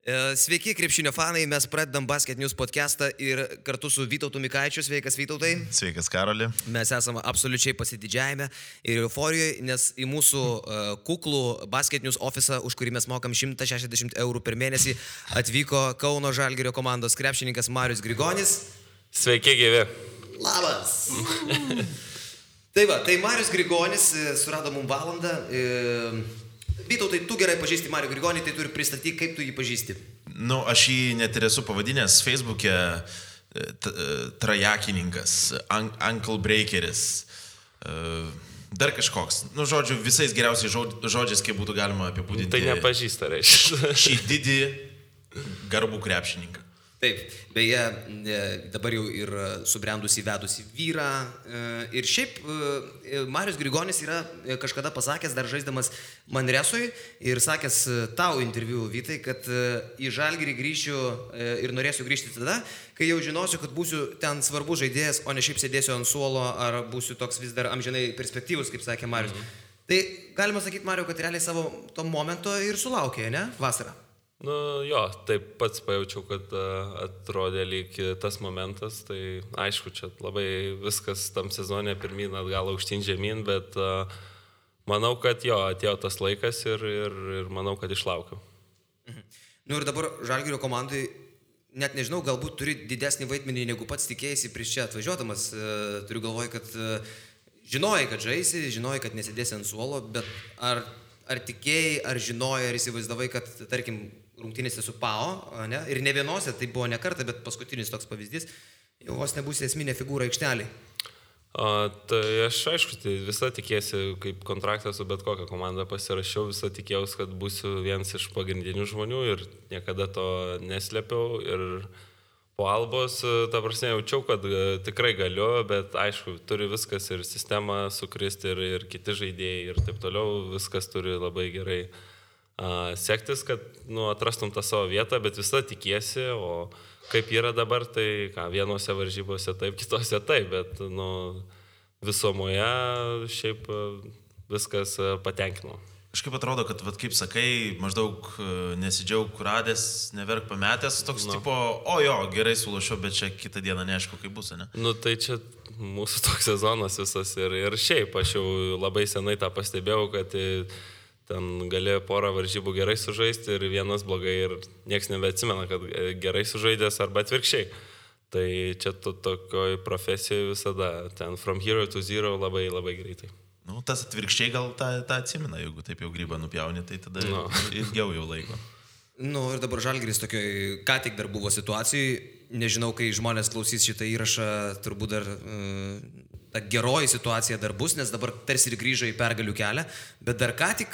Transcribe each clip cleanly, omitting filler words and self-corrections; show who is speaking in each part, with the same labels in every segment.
Speaker 1: Sveiki, krepšinio fanai, mes pradedam Basket News podcastą ir kartu su Vytautu Mikaičiu. Sveikas, Vytautai.
Speaker 2: Sveikas, Karoli.
Speaker 1: Mes esame absoliučiai pasididžiavime ir euforijoje, nes į mūsų kuklų Basket News ofisą, už kurį mes mokam 160 eurų per mėnesį, atvyko Kauno Žalgirio komandos krepšininkas Marius Grigonis.
Speaker 3: Sveiki, gyvi.
Speaker 1: Labas. Tai Marius Grigonis surado mums valandą. Vytautai, tu gerai pažįsti Marių Grigonį, tai turi pristatyti, kaip tu jį pažįsti.
Speaker 2: Aš jį net ir esu pavadinęs Facebook'e trajakininkas, ankle breakeris, dar kažkoks. Žodžiu, visais geriausiais žodžiais, kaip būtų galima apibūdinti.
Speaker 3: Tai nepažįsta, reiškia.
Speaker 2: Šį didį garbų krepšininką.
Speaker 1: Taip, beje, dabar jau ir subrendusi vedusi vyrą. Ir šiaip Marius Grigonis yra kažkada pasakęs, dar žaisdamas Manresui, ir sakęs tau interviu, Vytai, kad į Žalgirį grįšiu ir norėsiu grįžti tada, kai jau žinosiu, kad būsiu ten svarbus žaidėjas, o ne šiaip sėdėsiu ant suolo, ar būsiu toks vis dar amžinai perspektyvus, kaip sakė Marius. Tai galima sakyti, Mariu, kad realiai savo to momento ir sulaukė, ne? Vasarą.
Speaker 3: Jo, taip pats pajaučiau, kad atrodė lyg tas momentas, tai aišku, čia labai viskas tam sezone pirmyn atgal aukštyn žemyn, bet manau, kad atėjo tas laikas ir manau, kad išlaukiau.
Speaker 1: Ir dabar Žalgirio komandai, net nežinau, galbūt turi didesnį vaidmenį, negu pats tikėjasi prieš čia atvažiuodamas. Turiu galvoj, kad žinojai, kad žaisi, žinojai, kad nesėdėsi ant suolo, bet ar tikėjai, ar žinojai, ar įsivaizdavai, kad, tarkim, rungtynėse su PAO, ne? Ir ne vienose, tai buvo ne kartą, bet paskutinis toks pavyzdys, jau vos nebūsi esminė figūra aikšteliai.
Speaker 3: Tai aš aišku, tai visą tikėsi, kaip kontraktą su bet kokią komandą pasirašiau, visą tikėjausi, kad būsiu vienas iš pagrindinių žmonių ir niekada to neslėpiau. Ir po Albos, ta prasme, jaučiau, kad tikrai galiu, bet aišku, turi viskas ir sistema sukristi ir kiti žaidėjai ir taip toliau, viskas turi labai gerai sektis, kad atrastum tą savo vietą, bet visą tikiesi, o kaip yra dabar, tai vienose varžybose taip, kitose taip, bet visumoje šiaip viskas patenkino.
Speaker 2: Kažkaip atrodo, kad, kaip sakai, maždaug nesidžiaug radęs, neverk pametęs, toks tipo, gerai sulošiau, bet čia kitą dieną neaišku, kaip bus, ne?
Speaker 3: Tai čia mūsų toks sezonas visas ir šiaip aš jau labai senai tą pastebėjau, kad ten galėjo porą varžybų gerai sužaisti ir vienas blogai ir nieks nebeatsimena, kad gerai sužaidęs arba atvirkščiai. Tai čia tokioj profesijoje visada, ten from hero to zero labai labai greitai.
Speaker 2: Tas atvirkščiai gal tą atsimena, jeigu taip jau grybą nupjauni, tai tada ilgiau jau laiko.
Speaker 1: Ir dabar Žalgiris tokioj, ką tik dar buvo situacijai, nežinau, kai žmonės klausys šitą įrašą, turbūt dar ta geroji situacija dar bus, nes dabar tarsi ir grįžo į pergalių kelią, bet dar ką tik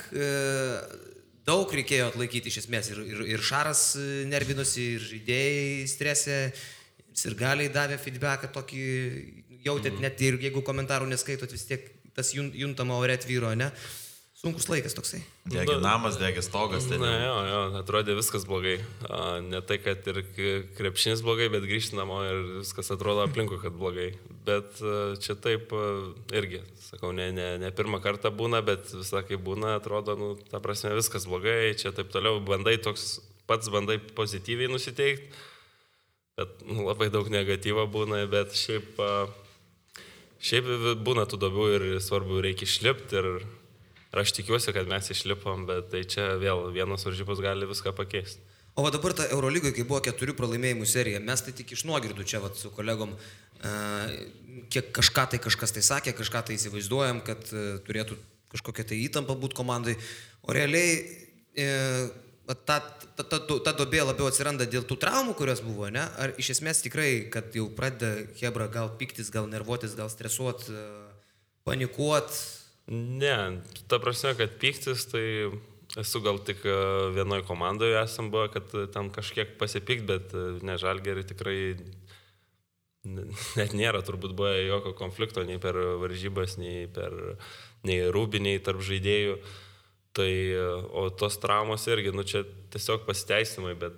Speaker 1: daug reikėjo atlaikyti iš esmės. Ir Šaras nervinosi, ir žaidėjai stresė, ir galiai davė feedbacką tokį, jautėt net ir jeigu komentarų neskaitot, vis tiek tas juntama ore tvyro, ne? Sunkus laikas toksai.
Speaker 2: Degė namas, degė stogas.
Speaker 3: Atrodė viskas blogai. Ne tai, kad ir krepšinis blogai, bet grįžti namo ir viskas atrodo aplinkui, kad blogai. Bet čia taip irgi, sakau, ne pirmą kartą būna, bet visą kai būna, atrodo, ta prasme, viskas blogai, čia taip toliau, pats bandai pozityviai nusiteikti, bet labai daug negatyvo būna, bet šiaip būna tų duobių ir svarbu reikia išlipti ir aš tikiuosi, kad mes išlipom, bet tai čia vėl vienos varžybos gali viską pakeisti.
Speaker 1: O dabar ta Eurolygoje, kai buvo 4 pralaimėjimų serija, mes tai tik iš nuogirdų čia su kolegom, kiek kažkas tai sakė, kažką tai įsivaizduojam, kad turėtų kažkokia tai įtampa būti komandai, o realiai ta duobė labiau atsiranda dėl tų traumų, kurios buvo, ne? Ar iš esmės tikrai, kad jau pradeda Hebra gal piktis, gal nervuotis, gal stresuot, panikuot?
Speaker 3: Ne, ta prasme, kad pyktis, tai esu gal tik vienoje komandoje esam buvo, kad ten kažkiek pasipikt, bet ne Žalgirį tikrai net nėra, turbūt buvo jokio konflikto nei per varžybas, nei rūbiniai tarp žaidėjų. Tai, o tos traumos irgi, čia tiesiog pasiteisimai, bet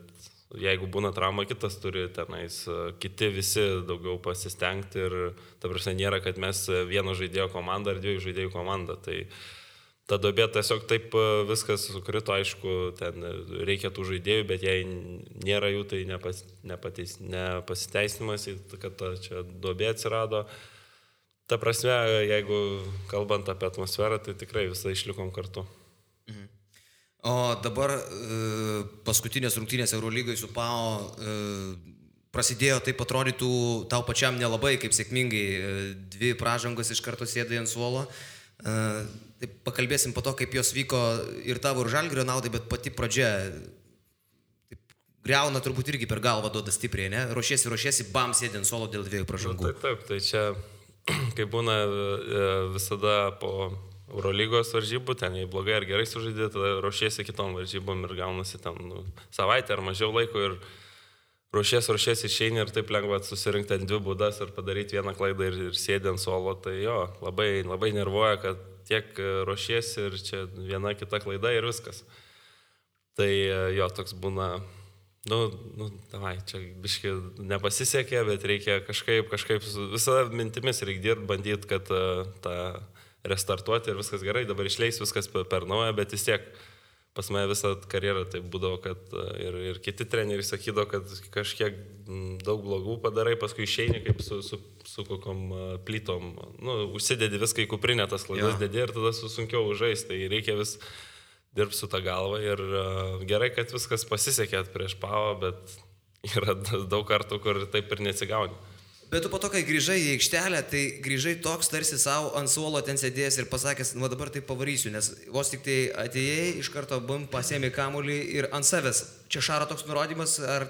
Speaker 3: jeigu būna trauma, kitas turi tenais, kiti visi daugiau pasistengti ir ta prasme nėra, kad mes vieno žaidėjo komanda ar 2 žaidėjų komanda. Tai ta duobė tiesiog taip viskas sukrito, aišku, ten reikia tų žaidėjų, bet jei nėra jų, tai nepasiteisinimas, kad čia duobė atsirado. Ta prasme, jeigu kalbant apie atmosferą, tai tikrai visą išlikom kartu.
Speaker 1: O dabar paskutinės rungtynės Eurolygai su PAO prasidėjo, taip atrodytų tau pačiam nelabai, kaip sėkmingai, 2 pražangos iš karto sėdai ant suolo. Taip pakalbėsim po to, kaip jos vyko ir tavo ir Žalgirio naudai, bet pati pradžia taip, griauna turbūt irgi per galvą duoda stipriai, ne? Ruošiesi, bam, sėdė ant suolo dėl 2 pražangų.
Speaker 3: Taip, tai čia, kaip būna visada po Eurolygos varžybų, ten jei blogai ar gerai sužaidė, tada ruošiesi kitom varžybom ir gaunasi ten savaitę ar mažiau laiko ir ruošiesi išeini ir taip lengva susirinkti ant 2 būdas ir padaryti vieną klaidą ir sėdė ant suolo, tai jo, labai, labai nervuoja, kad tiek ruošiesi ir čia viena kita klaida ir viskas. Tai jo, toks būna, davai, čia biški nepasisekė, bet reikia kažkaip visada mintimis reikia dirbti, bandyti, kad tą restartuoti ir viskas gerai, dabar išleis viskas per naują, bet vis tiek pas mane visą karjerą tai būdavo, kad ir kiti treneriai sakydavo, kad kažkiek daug blogų padarai, paskui išeini kaip su kokiom plytom, užsidedi viską į kuprinę, tas klaidas dedi ir tada sunkiau žaisti, tai reikia vis dirbti su tą galvą ir gerai, kad viskas pasisekė prieš PAO, bet yra daug kartų, kur taip ir neatsigauni.
Speaker 1: Bet tu po to, kai grįžai į aikštelę, tai grįžai toks tarsi savo ant suolo ten sėdėjęs ir pasakęs, dabar tai pavarysiu, nes vos tik tai atėjai, iš karto pasiėmė kamuolį ir ant savęs. Čia Šaro toks nurodymas ar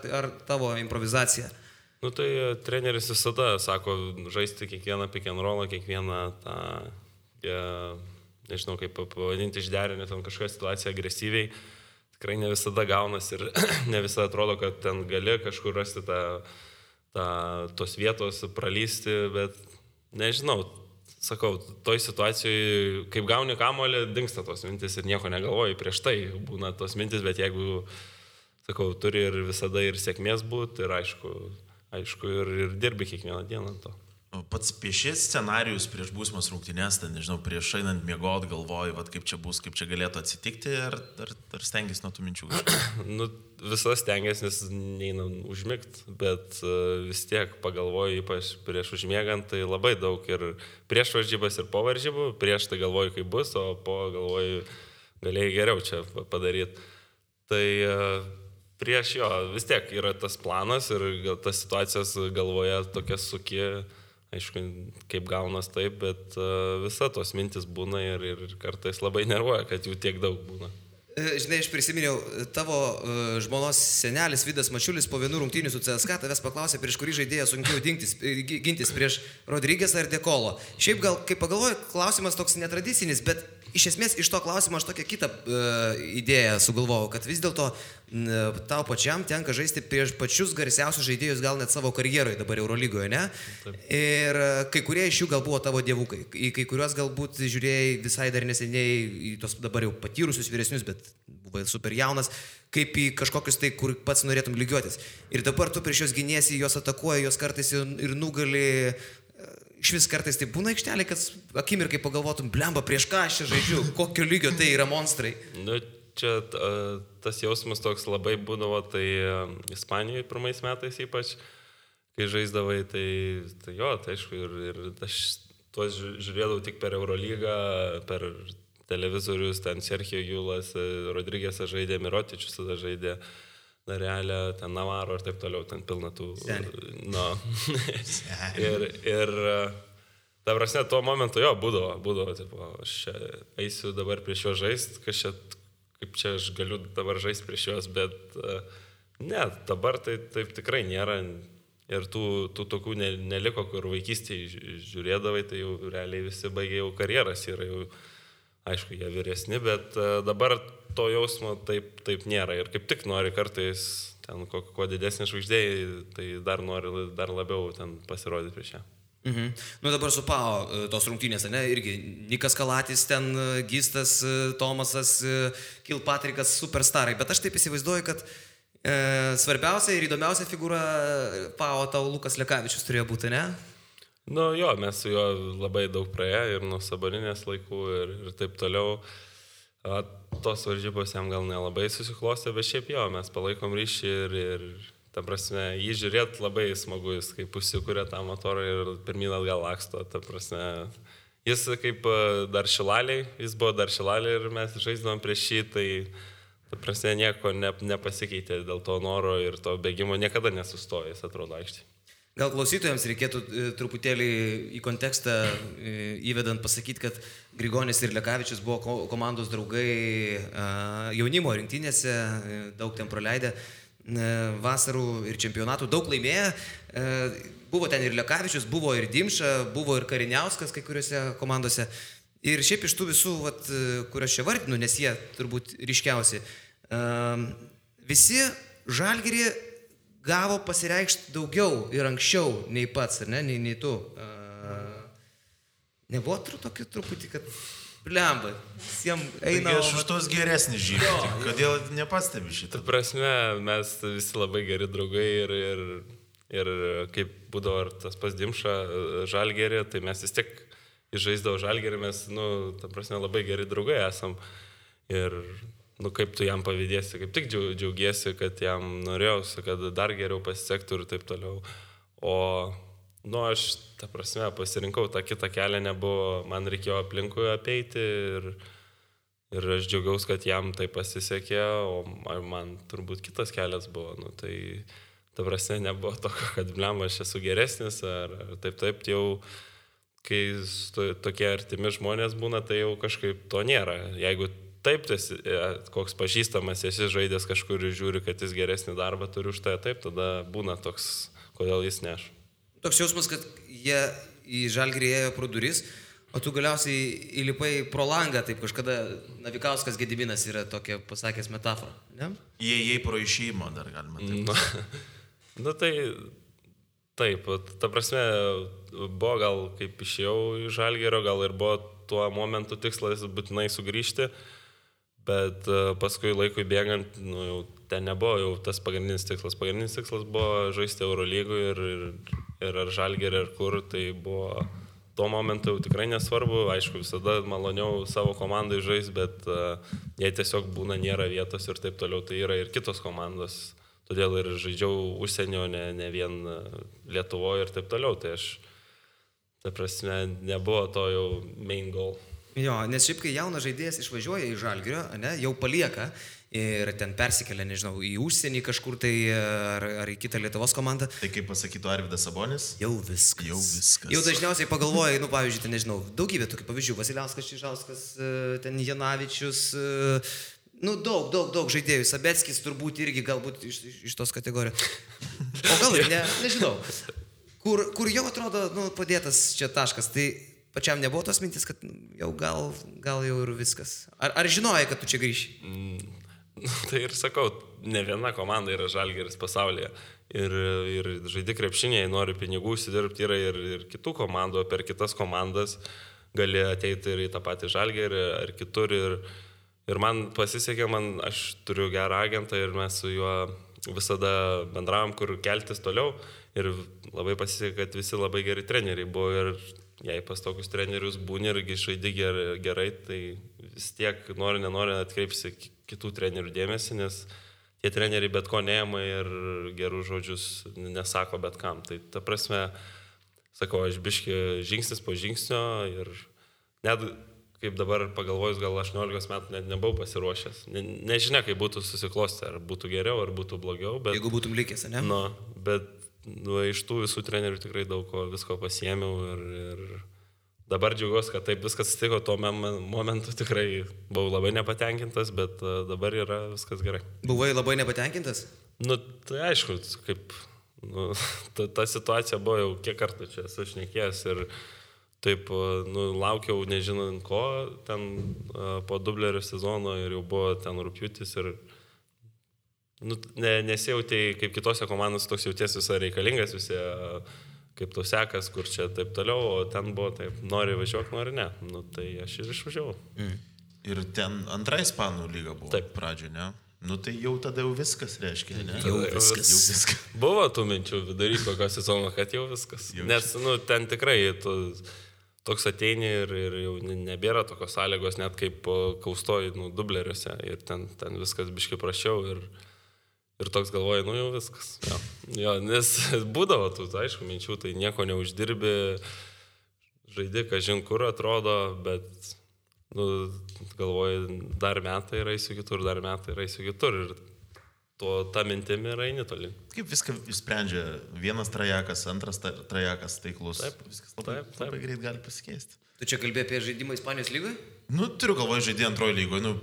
Speaker 1: tavo improvizacija?
Speaker 3: Tai treneris visada sako, žaisti kiekvieną pick and rollą, kiekvieną tą, nežinau kaip pavadinti, išderinę tam kažkokią situaciją agresyviai. Tikrai ne visada gaunas ir ne visada atrodo, kad ten gali kažkur rasti tos vietos pralysti, bet nežinau, sakau, toj situacijoje, kaip gauni kamuolį, dingsta tos mintis ir nieko negalvoji, prieš tai būna tos mintis, bet jeigu, sakau, turi ir visada ir sėkmės būti, ir aišku, ir dirbi kiekvieną dieną to.
Speaker 2: Pats piešės scenarijus prieš būsimas rungtynės, tai nežinau, prieš einant miegot galvoji, kaip čia bus, kaip čia galėtų atsitikti, ar stengiasi nuo tų minčių?
Speaker 3: Visas stengiasi, nes neina užmigt, bet vis tiek pagalvoju, ypač prieš užmiegant, tai labai daug ir prieš varžybas ir po varžybų, prieš tai galvoju, kaip bus, o po galvoju, galėjai geriau čia padaryti. Tai prieš jo vis tiek yra tas planas ir tas situacijas galvoje tokias suki. Aišku, kaip gaunas taip, bet visa tos mintis būna ir kartais labai nervuoja, kad jų tiek daug būna.
Speaker 1: Žinai, aš prisiminiau, tavo žmonos senelis Vidas Mačiulis po 1 rungtynių su CSKA tavęs paklausė, prieš kurį žaidėją sunkiau gintis, prieš Rodriguezą ar De Colo. Šiaip gal, kaip pagalvoju, klausimas toks netradicinis, bet iš esmės iš to klausimo aš tokią kitą idėją sugalvojau, kad vis dėlto tau pačiam tenka žaisti prieš pačius garsiausius žaidėjus gal net savo karjeroje dabar Eurolygoje, ne? Taip. Ir kai kurie iš jų gal buvo tavo dievukai, į kai kuriuos galbūt žiūrėjai visai dar neseniai, į tos dabar jau patyrusius vyresnius, bet buvo super jaunas, kaip į kažkokius tai, kur pats norėtum lygiuotis. Ir dabar tu prieš juos giniesi, juos atakuoji, juos kartais ir nugali. Iš vis kartais tai būna aikštelė, kad akimirkai pagalvotum, blemba, prieš ką aš čia žaidžiu, kokio lygio tai yra monstrai.
Speaker 3: Čia tas jausmas toks labai būdavo, tai Ispanijoje pirmais metais ypač, kai žaisdavai, tai jo, tai aišku, ir aš tuos žiūrėdavau tik per Eurolygą, per televizorius, ten Sergio Julas, Rodriguezas žaidė, Mirotičius tada žaidė, Darelė, ten Navaro ir taip toliau, ten pilna tų... ir ta prasme, tuo momentu jo, būdavo, tipo, aš čia eisiu dabar prieš juos žaisti, kaip čia aš galiu dabar žaisti prieš juos, bet ne, dabar tai taip tikrai nėra ir tų tokių neliko, kur vaikystėje žiūrėdavai, tai jau realiai visi baigė jau karjeras, yra jau, aišku, jie vyresni, bet dabar to jausmo taip nėra ir kaip tik nori kartais ten kuo didesnė žvaigždėjai, tai nori dar labiau ten pasirodyti prieš ją.
Speaker 1: Dabar su PAO tos rungtynės, ne, irgi Nikas Kalatis, ten Gistas, Tomasas, Kilpatrikas, superstarai, bet aš taip įsivaizduoju, kad svarbiausia ir įdomiausia figūra PAO tau Lukas Lekavičius turėjo būti, ne?
Speaker 3: Nu jo, mes su juo labai daug praėję ir nuo Saboninės laikų ir taip toliau. Tos varžybos jam gal nelabai susiklostė, bet šiaip jo, mes palaikom ryšį ir ta prasme, jį žiūrėt labai smagu, jis kaip užsikūrė tą motorą ir pirmyn atgal laksto, ta prasme. Jis kaip dar Šilaliai, jis buvo dar Šilaliai ir mes žaisdavom prieš jį, tai ta prasme nieko nepasikeitė dėl to noro ir to bėgimo, niekada nesustojo, jis atrodo aikštėje.
Speaker 1: Gal klausytojams reikėtų truputėlį į kontekstą įvedant pasakyti, kad Grigonis ir Lekavičius buvo komandos draugai jaunimo rinktinėse, daug ten praleidę vasarų ir čempionatų, daug laimėję. Buvo ten ir Lekavičius, buvo ir Dimša, buvo ir Kariniauskas kai kuriuose komandose. Ir šiaip iš tų visų, kuriuos čia vardinu, nes jie turbūt ryškiausi, visi Žalgirį gavo pasireikšti daugiau ir anksčiau nei pats, ar ne, nei tu. Nebuvo tokį truputį, kad blemba, visiems eina...
Speaker 2: Taigi aš už tos geresnį žymį, kodėl nepastebi šitą?
Speaker 3: Ta prasme, mes visi labai geri draugai ir kaip būdavo tas pas Dimša Žalgirį, tai mes vis tiek žaisdavo Žalgirį, mes, ta prasme, labai geri draugai esam. Ir kaip tu jam pavydėsi, kaip tik džiaugiesi, kad jam norėjausi, kad dar geriau pasisektų ir taip toliau. O, aš, ta prasme, pasirinkau tą kitą kelią, nebuvo, man reikėjo aplinkui apeiti ir aš džiaugiausi, kad jam tai pasisekė, o man turbūt kitas kelias buvo. Tai, ta prasme, nebuvo tokio, kad blem, aš esu geresnis ar taip, jau, kai tokie artimi žmonės būna, tai jau kažkaip to nėra. Jeigu taip, koks pažįstamas, esi žaidęs kažkur ir žiūri, kad jis geresnį darbą turi už tai, taip, tada būna toks, kodėl jis neš.
Speaker 1: Toks jausmas, kad jie į Žalgirį ėjo pro duris, o tu galiausiai įlipai pro langą, taip kažkada Navikauskas Gediminas yra tokia pasakęs metafora, ne?
Speaker 2: Jie pro išėjimo dar galima taip.
Speaker 3: Tai taip, ta prasme, buvo gal kaip išėjau į Žalgirio, gal ir buvo tuo momentu tikslas būtinai sugrįžti. Bet paskui laikui bėgant, jau ten nebuvo jau tas pagrindinis tikslas. Pagrindinis tikslas buvo žaisti Eurolygų ir ar Žalgirį, ar kur. Tai buvo tuo momentu jau tikrai nesvarbu. Aišku, visada maloniau savo komandai žaisti, bet jei tiesiog būna nėra vietos ir taip toliau, tai yra ir kitos komandos. Todėl ir žaidžiau užsienio, ne vien Lietuvoje ir taip toliau. Tai aš, ta prasme, nebuvo to jau main goal.
Speaker 1: Jo, nes šiaip kai jaunas žaidėjas išvažiuoja į Žalgirio, jau palieka ir ten persikelia, nežinau, į užsienį kažkur tai ar į kitą Lietuvos komandą.
Speaker 2: Tai kaip pasakytų Arvydas Sabonis?
Speaker 1: Jau viskas. Jau dažniausiai pagalvoja, pavyzdžiui, ten, nežinau, daugybė tokių pavyzdžių. Vasiliauskas, Čižauskas, ten Janavičius, daug žaidėjų. Sabeckis turbūt irgi galbūt iš tos kategorijos. O gal ir nežinau. Kur jau atrodo, padėtas čia taškas, tai pačiam nebuvo tos mintis, kad jau gal jau ir viskas. Ar žinojai, kad tu čia grįši?
Speaker 3: Tai ir sakau, ne viena komanda yra Žalgiris pasaulyje. Ir žaidi krepšiniai, nori pinigų užsidirbti, yra ir kitų komandų, per kitas komandas gali ateiti ir į tą patį Žalgirį ar kitur. Ir man pasisekė, aš turiu gerą agentą ir mes su juo visada bendravom, kur keltis toliau. Ir labai pasisekė, kad visi labai geri treneriai buvo ir jei pas tokius trenerius būni irgi žaidi gerai, tai vis tiek nenori atkreipsi kitų trenerių dėmesį, nes tie treneriai bet ko neima ir gerų žodžius nesako bet kam. Tai ta prasme, sakau, aš biški žingsnis po žingsnio ir net kaip dabar pagalvojus, gal 18 metų net nebuvau pasiruošęs. Nežinia, kaip būtų susiklostę, ar būtų geriau, ar būtų blogiau. Bet,
Speaker 1: jeigu būtum likęs, ne?
Speaker 3: Bet iš tų visų trenerių tikrai daug visko pasiėmiau ir dabar džiaugiuosi, kad taip viskas atsitiko, tuo momentu tikrai buvau labai nepatenkintas, bet dabar yra viskas gerai.
Speaker 1: Buvai labai nepatenkintas?
Speaker 3: Tai aišku, kaip ta situacija buvo jau kiek kartų čia esu šnekėjęs ir taip laukiau nežinant ko, ten po Dublerio sezono ir jau buvo ten rugpjūtis ir nesijautai kaip kitose komandose, toks jauties visai reikalingas, visi kaip tau sekas, kur čia taip toliau, o ten buvo taip, nori važiuok, nori ne. Tai aš ir išvažiavau.
Speaker 2: Ir ten antra Ispanų lyga buvo pradžioje, ne? Nu tai jau tada jau viskas reiškia, ne?
Speaker 1: Jau viskas.
Speaker 3: Buvo tų minčių vidury kokio sezono, kad jau viskas. Nes, ten tikrai tu toks ateini ir jau nebėra tokios sąlygos, net kaip kaustoji, dubleriuose. Ir ten viskas biškai prašiau ir toks galvoju, jau viskas. Jo, nes būdavo tų, aišku, minčių, tai nieko neuždirbi, žaidi, kažin kur atrodo, bet galvoju, dar metai ir eisiu kitur, dar metai ir eisiu kitur. Ir ta mintimi ir eini toli.
Speaker 2: Kaip viską išsprendžia vienas trajekas, antras trajekas taiklus.
Speaker 3: Taip,
Speaker 2: viskas labai greit gali pasikeisti.
Speaker 1: Tu čia kalbėjai apie žaidimą Ispanijos lygoje?
Speaker 2: Turiu galvoje žaidį antrojo lygoje.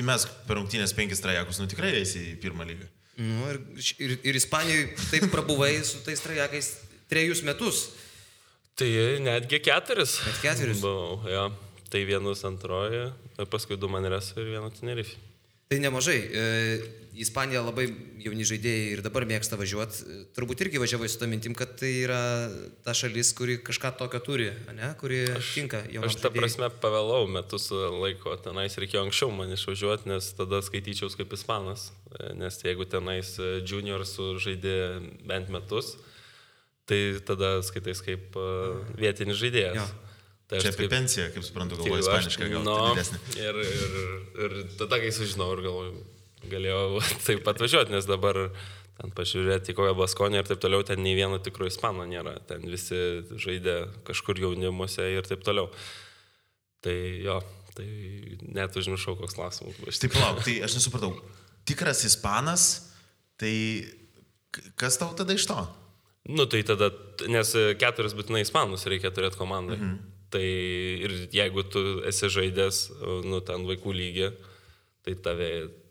Speaker 2: Įmesk per rungtynės 5 trajekus, tikrai eisi į pirmą lygą.
Speaker 1: Ir Ispanijoje taip prabuvai su tais trajakais 3 metus.
Speaker 3: Tai netgi 4.
Speaker 1: Net 4.
Speaker 3: Buvau, jo. Tai vienus antroje, paskui 2 Manresą ir 1 Tenerife.
Speaker 1: Tai nemažai. Ispanija labai jauni žaidėjai ir dabar mėgsta važiuoti. Turbūt irgi važiavai su tą mintim, kad tai yra ta šalis, kuri kažką tokio turi, ne? Kuri tinka jaunam žaidėjai.
Speaker 3: Aš ta prasme pavėlau metus laiko. Tenais reikėjo anksčiau man išvažiuoti, nes tada skaityčiaus kaip ispanas. Nes jeigu tenais juniors žaidė bent metus, tai tada skaitais kaip vietinis žaidėjas.
Speaker 1: Jo.
Speaker 3: Tai
Speaker 2: čia apie pensiją, kaip suprantu, galvoju ispaniškai, gal didesnį.
Speaker 3: Ir tada, kai sužinau, ir galvoju, galėjau taip atvažiuoti, nes dabar ten pažiūrėti, kokią Baskonę ir taip toliau, ten nei vieno tikro ispano nėra. Ten visi žaidė kažkur jaunimuose ir taip toliau. Tai jo, tai net užmiršau, koks klausimas.
Speaker 2: Taip, lauk, tai aš nesupratau. Tikras ispanas, tai kas tau tada iš to?
Speaker 3: Tai tada, nes 4 būtinai ispanus reikia turėti komandai. Tai ir jeigu tu esi žaidęs, ten vaikų lygį, tai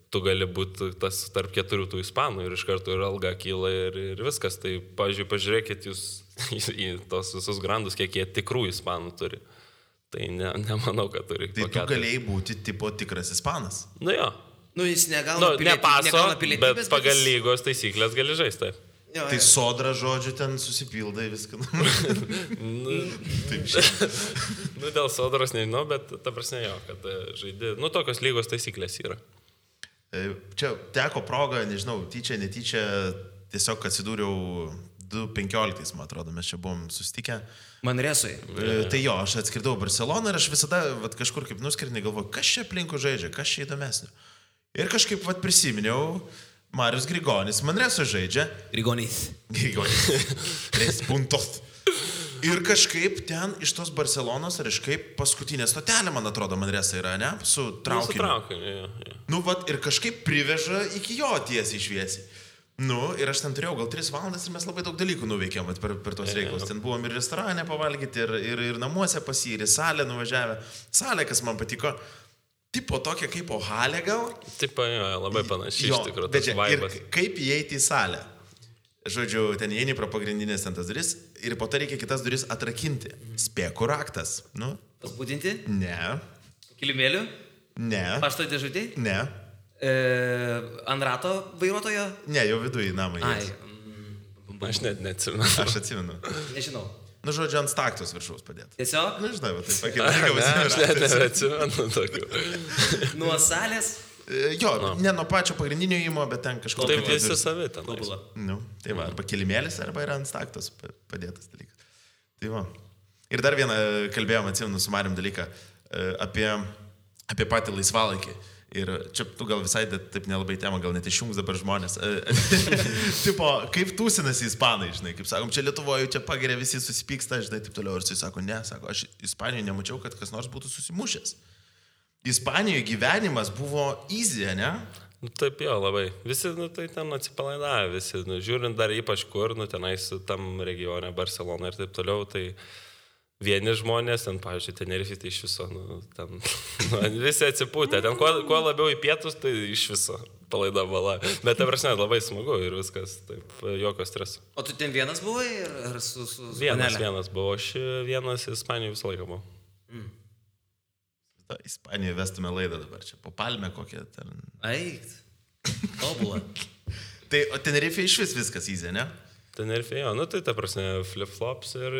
Speaker 3: tu gali būti tas tarp 4 tų ispanų ir iš karto ir alga kyla ir viskas. Tai, pavyzdžiui, pažiūrėkit jūs į tos visus grandus, kiek jie tikrų ispanų turi. Tai nemanau, kad turi.
Speaker 2: Tai tu galėjai būti tipo tikras ispanas.
Speaker 3: Jo.
Speaker 1: Jis negauna pilietybės,
Speaker 3: bet pagal lygos taisyklės gali žaisti. Taip.
Speaker 1: Jo,
Speaker 2: tai sodra, žodžiu, ten susipildai viską. Taip šiandien.
Speaker 3: Dėl sodros nežinau, bet ta prasme jo, kad žaidži. Tokios lygos taisyklės yra.
Speaker 2: Čia teko proga, nežinau, tyčia, netyčia, tiesiog atsidūriau 2015, man atrodo, mes čia buvom susitikę.
Speaker 1: Manresui.
Speaker 2: Tai jo, aš atskridau Barceloną ir aš visada kažkur kaip nuskridinai galvoju, kas čia aplinkų žaidžia, kas čia įdomesnio. Ir kažkaip prisiminiau, Marius Grigonis Manreso žaidžia.
Speaker 1: Grigonis.
Speaker 2: 3 puntos. Ir kažkaip ten iš tos Barcelonos, ar kažkaip paskutinė stotelė, man atrodo, Manresa yra, ne? Su traukiniu.
Speaker 3: Su traukiniu, jo.
Speaker 2: Ir kažkaip priveža iki jo tiesiai šviesiai. Ir aš ten turėjau gal 3 valandas ir mes labai daug dalykų nuveikėm per tos reikalus. Ten buvom ir restorane pavalgyti, ir namuose pas jį, ir į salę nuvažiavę. Salė, kas man patiko. Tipo tokia kaip Ohalė gal?
Speaker 3: Taip, jo, labai panašiai iš tikrųjų. Tas vaibas.
Speaker 2: Ir kaip įeiti į salę? Žodžiu, ten įeini pro pagrindinės ten tas duris ir po to reikia kitas duris atrakinti. Spėkų raktas.
Speaker 1: Pasbūdinti?
Speaker 2: Ne.
Speaker 1: Kilimėlių?
Speaker 2: Ne.
Speaker 1: Pašto dėžutį?
Speaker 2: Ne.
Speaker 1: Ant rato vairuotojo?
Speaker 2: Ne, jau viduje namai.
Speaker 3: Aš net neatsimenu.
Speaker 2: Aš atsimenu.
Speaker 1: Nežinau.
Speaker 2: Žodžiu, ant staktos viršaus padėti.
Speaker 1: Tiesiog?
Speaker 2: Žinai, va, taip pakėlė.
Speaker 3: Aš net neatsimenu tokių.
Speaker 1: Nuo salės?
Speaker 2: Jo, ne nuo pačio pagrindinio įmo, bet ten kažko.
Speaker 3: Taip visi savi ten.
Speaker 2: Tai va, arba kilimėlis, arba yra ant staktos padėtas dalykas. Tai va. Ir dar vieną kalbėjom, atsimenu, su Marium dalyką apie patį laisvalaikį. Ir čia tu gal visai taip nelabai tema, gal net išjungs dabar žmonės. Tipo, kaip tūsinasi ispanai, žinai, kaip sakom, čia Lietuvoje čia pageria, visi susipyksta, žinai, taip toliau. Ir jis sako, ne, sako, aš Ispanijoje nemačiau, kad kas nors būtų susimušęs. Ispanijoje gyvenimas buvo easy, ne?
Speaker 3: Taip jo, labai. Visi, tai ten atsipalaidavę, visi, žiūrint dar ypač kur, tenais tam regione, Barcelona ir taip toliau, tai vieni žmonės, ten, pavyzdžiui, Tenerife, tai iš viso, ten, visi atsipūtė, ten kuo labiau į pietus, tai iš viso palaida bala. Bet, ta prasme, labai smagu ir viskas, taip, jokio streso.
Speaker 1: O tu ten vienas buvai ar su
Speaker 3: Vienas buvo, aš vienas Ispanijoje visą laiką buvau.
Speaker 2: Ispanijoje vestume laidą dabar čia, po palmę kokią ten.
Speaker 1: Aikt, tobulą.
Speaker 2: Tai, o Tenerife iš vis viskas įzė, ne?
Speaker 3: Tenerifėjo, nu tai ta prasme flip-flops ir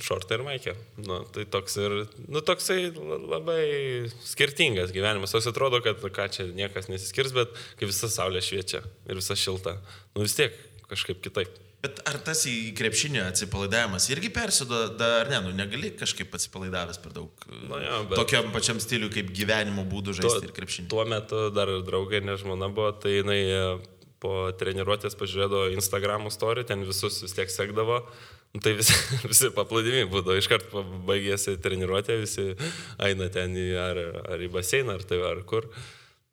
Speaker 3: šortai ir maikė. Nu, tai toks ir, nu toksai labai skirtingas gyvenimas. Toks atrodo, kad ką čia niekas nesiskirs, bet kai visa saulė šviečia ir visa šilta, nu vis tiek kažkaip kitaip.
Speaker 2: Bet ar tas į krepšinį atsipalaidavimas irgi persiduoda, ar ne, nu negali kažkaip atsipalaidavęs per daug tokiam pačiam stiliui kaip gyvenimo būdų žaisti ir krepšinį?
Speaker 3: Tuo metu dar draugai, ne žmona buvo, tai jinai po treniruotės pažiūrėdavo Instagram'o story, ten visus vis tiek sekdavo, tai visi paplūdimiai būdavo, iškart baigėsi treniruotė, visi eina ten ar į baseiną, ar kur.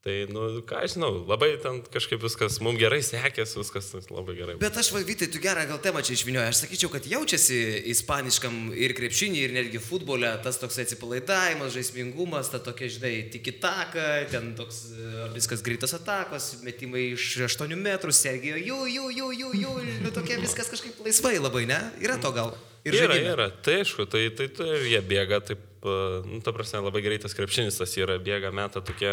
Speaker 3: Tai, nu, ką aš žinau, labai ten kažkaip viskas, mums gerai sekės, viskas labai gerai.
Speaker 1: Bet aš, Vytai, tu gerą gal temą čia išvinioji. Aš sakyčiau, kad jaučiasi ispaniškam ir krepšinį, ir netgi futbole tas toks atsipalaidavimas, žaismingumas, ta tokia, žinai, tiki-taka, ten toks viskas greitos atakos, metimai iš 8 metrų, Sergijo, jų, tokia viskas kažkaip laisvai labai, ne? Yra to gal?
Speaker 3: Yra, tai aišku, tai jie bėga taip, nu, ta prasme, labai greitas krepšinis tas yra, bėga, meta tokie,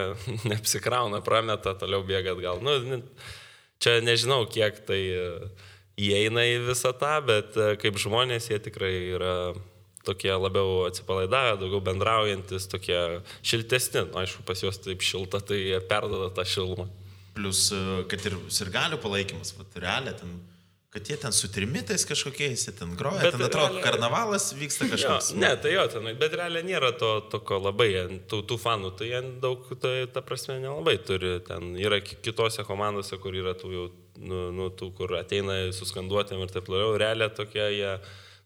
Speaker 3: neapsikrauna, prameta, toliau bėga atgal. Nu, čia nežinau, kiek tai įeina į visą tą, bet kaip žmonės jie tikrai yra tokie labiau atsipalaidavę, daugiau bendraujantis, tokie šiltesni. Nu, aišku, pas juos taip šilta, tai jie perduoda tą šilumą.
Speaker 2: Plus, kad ir sirgalių palaikymas, realiai ten... Kad jie ten su trimitais kažkokiais, jie ten groja, ten atrodo, karnavalas vyksta kažkoks.
Speaker 3: Ne, tai jo, ten, bet realiai nėra toko labai, tų fanų, tai jie daug, tai ta prasme nelabai turi, ten yra kitose komandose, kur yra tų jau, nu, tų, kur ateina suskanduotėm ir taip toliau, realiai tokie jie,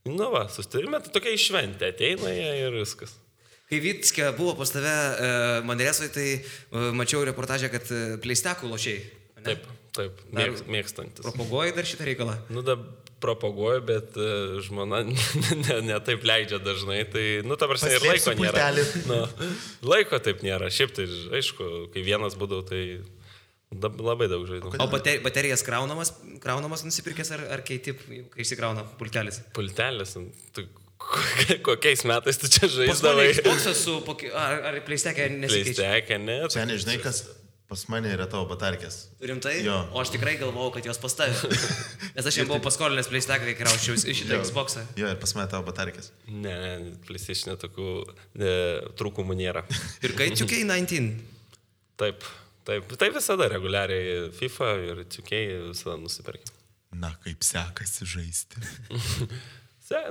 Speaker 3: nu va, sustarime, tai tokia išventė, ateina jie ir viskas.
Speaker 1: Kai Vytskė buvo pas tave Manresoje, tai mačiau reportažę, kad pleistekų lošiai.
Speaker 3: Taip, mėgstantis.
Speaker 1: Propaguoji dar šitą reikalą?
Speaker 3: Nu, da propaguoju, bet žmona ne taip leidžia dažnai, tai, nu, ta prasme, ir laiko nėra. Nu, laiko taip nėra. Šiaip tai, aišku, kai vienas būdavau, tai labai daug žaidžiu.
Speaker 1: O baterijas kraunamas nusipirkęs ar keiti, kai išsikrauna pultelis?
Speaker 3: Pultelis, tai kokiais metais tu čia žaisdavai?
Speaker 1: Xbox'as su, ar pleistekė nesikeičia?
Speaker 3: Pleistekė, ne.
Speaker 2: Seniai, žinai, kas pas mane yra tavo batarkės.
Speaker 1: Rimtai?
Speaker 2: Jo.
Speaker 1: O aš tikrai galvojau, kad jos pas tave. Nes aš jam buvau paskolinęs pleisteką, kai krauščiau iš šitą Xbox'ą.
Speaker 2: Jo, ir pas mane tavo batarkės.
Speaker 3: Ne, PlayStation tokių trūkumų nėra.
Speaker 1: Ir kai 2K19?
Speaker 3: Taip visada reguliariai FIFA ir 2K visada nusipirkė.
Speaker 2: Na, kaip sekasi žaisti.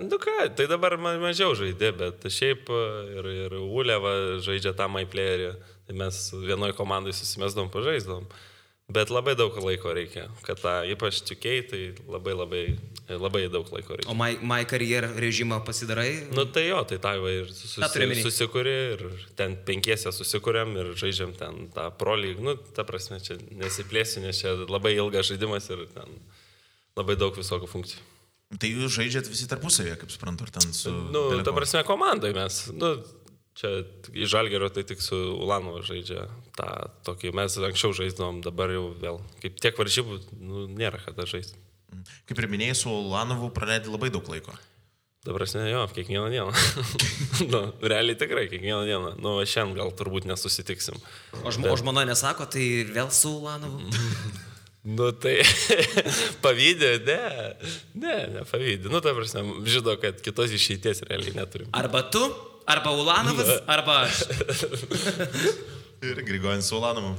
Speaker 3: Nu ką, tai dabar mažiau žaidė, bet šiaip ir Uleva žaidžia tą MyPlayerį, tai mes vienoj komandai susimesdom, pažaisdom, bet labai daug laiko reikia, kad tą ypač 2K, tai labai daug laiko reikia.
Speaker 1: O My Career režimą pasidarai?
Speaker 3: Nu tai jo, tai tą ir susikuri ir ten 5 susikuriam ir žaidžiam ten tą Pro League, nu ta prasme, čia nesiplėsiu, nes čia labai ilgas žaidimas ir ten labai daug visokių funkcijų.
Speaker 2: Tai jūs žaidžiat visi tarpusavėje, kaip suprantu, ar ten su...
Speaker 3: Nu, ta prasme, komandai mes, nu, čia iš Žalgirio tai tik su Ulanovu žaidžia tą tokį, mes anksčiau žaisdavom, dabar jau vėl, kaip tiek varžybų, nu, nėra kada žaisti.
Speaker 2: Kaip ir minėjai, su Ulanovu praleidai labai daug laiko.
Speaker 3: Ta prasme, jo, kiekvieną dieną. Nu, realiai tikrai, kiekvieną dieną. Nu, šiandien gal turbūt nesusitiksim.
Speaker 1: O žmona nesako, tai vėl su Ulanovu?
Speaker 3: Nu tai pavydė, ne pavydė. Nu ta prasme, žino, kad kitos išeities realiai neturim.
Speaker 1: Arba tu, arba Ulanovas, arba aš.
Speaker 2: Ir Grigonis su Ulanovu.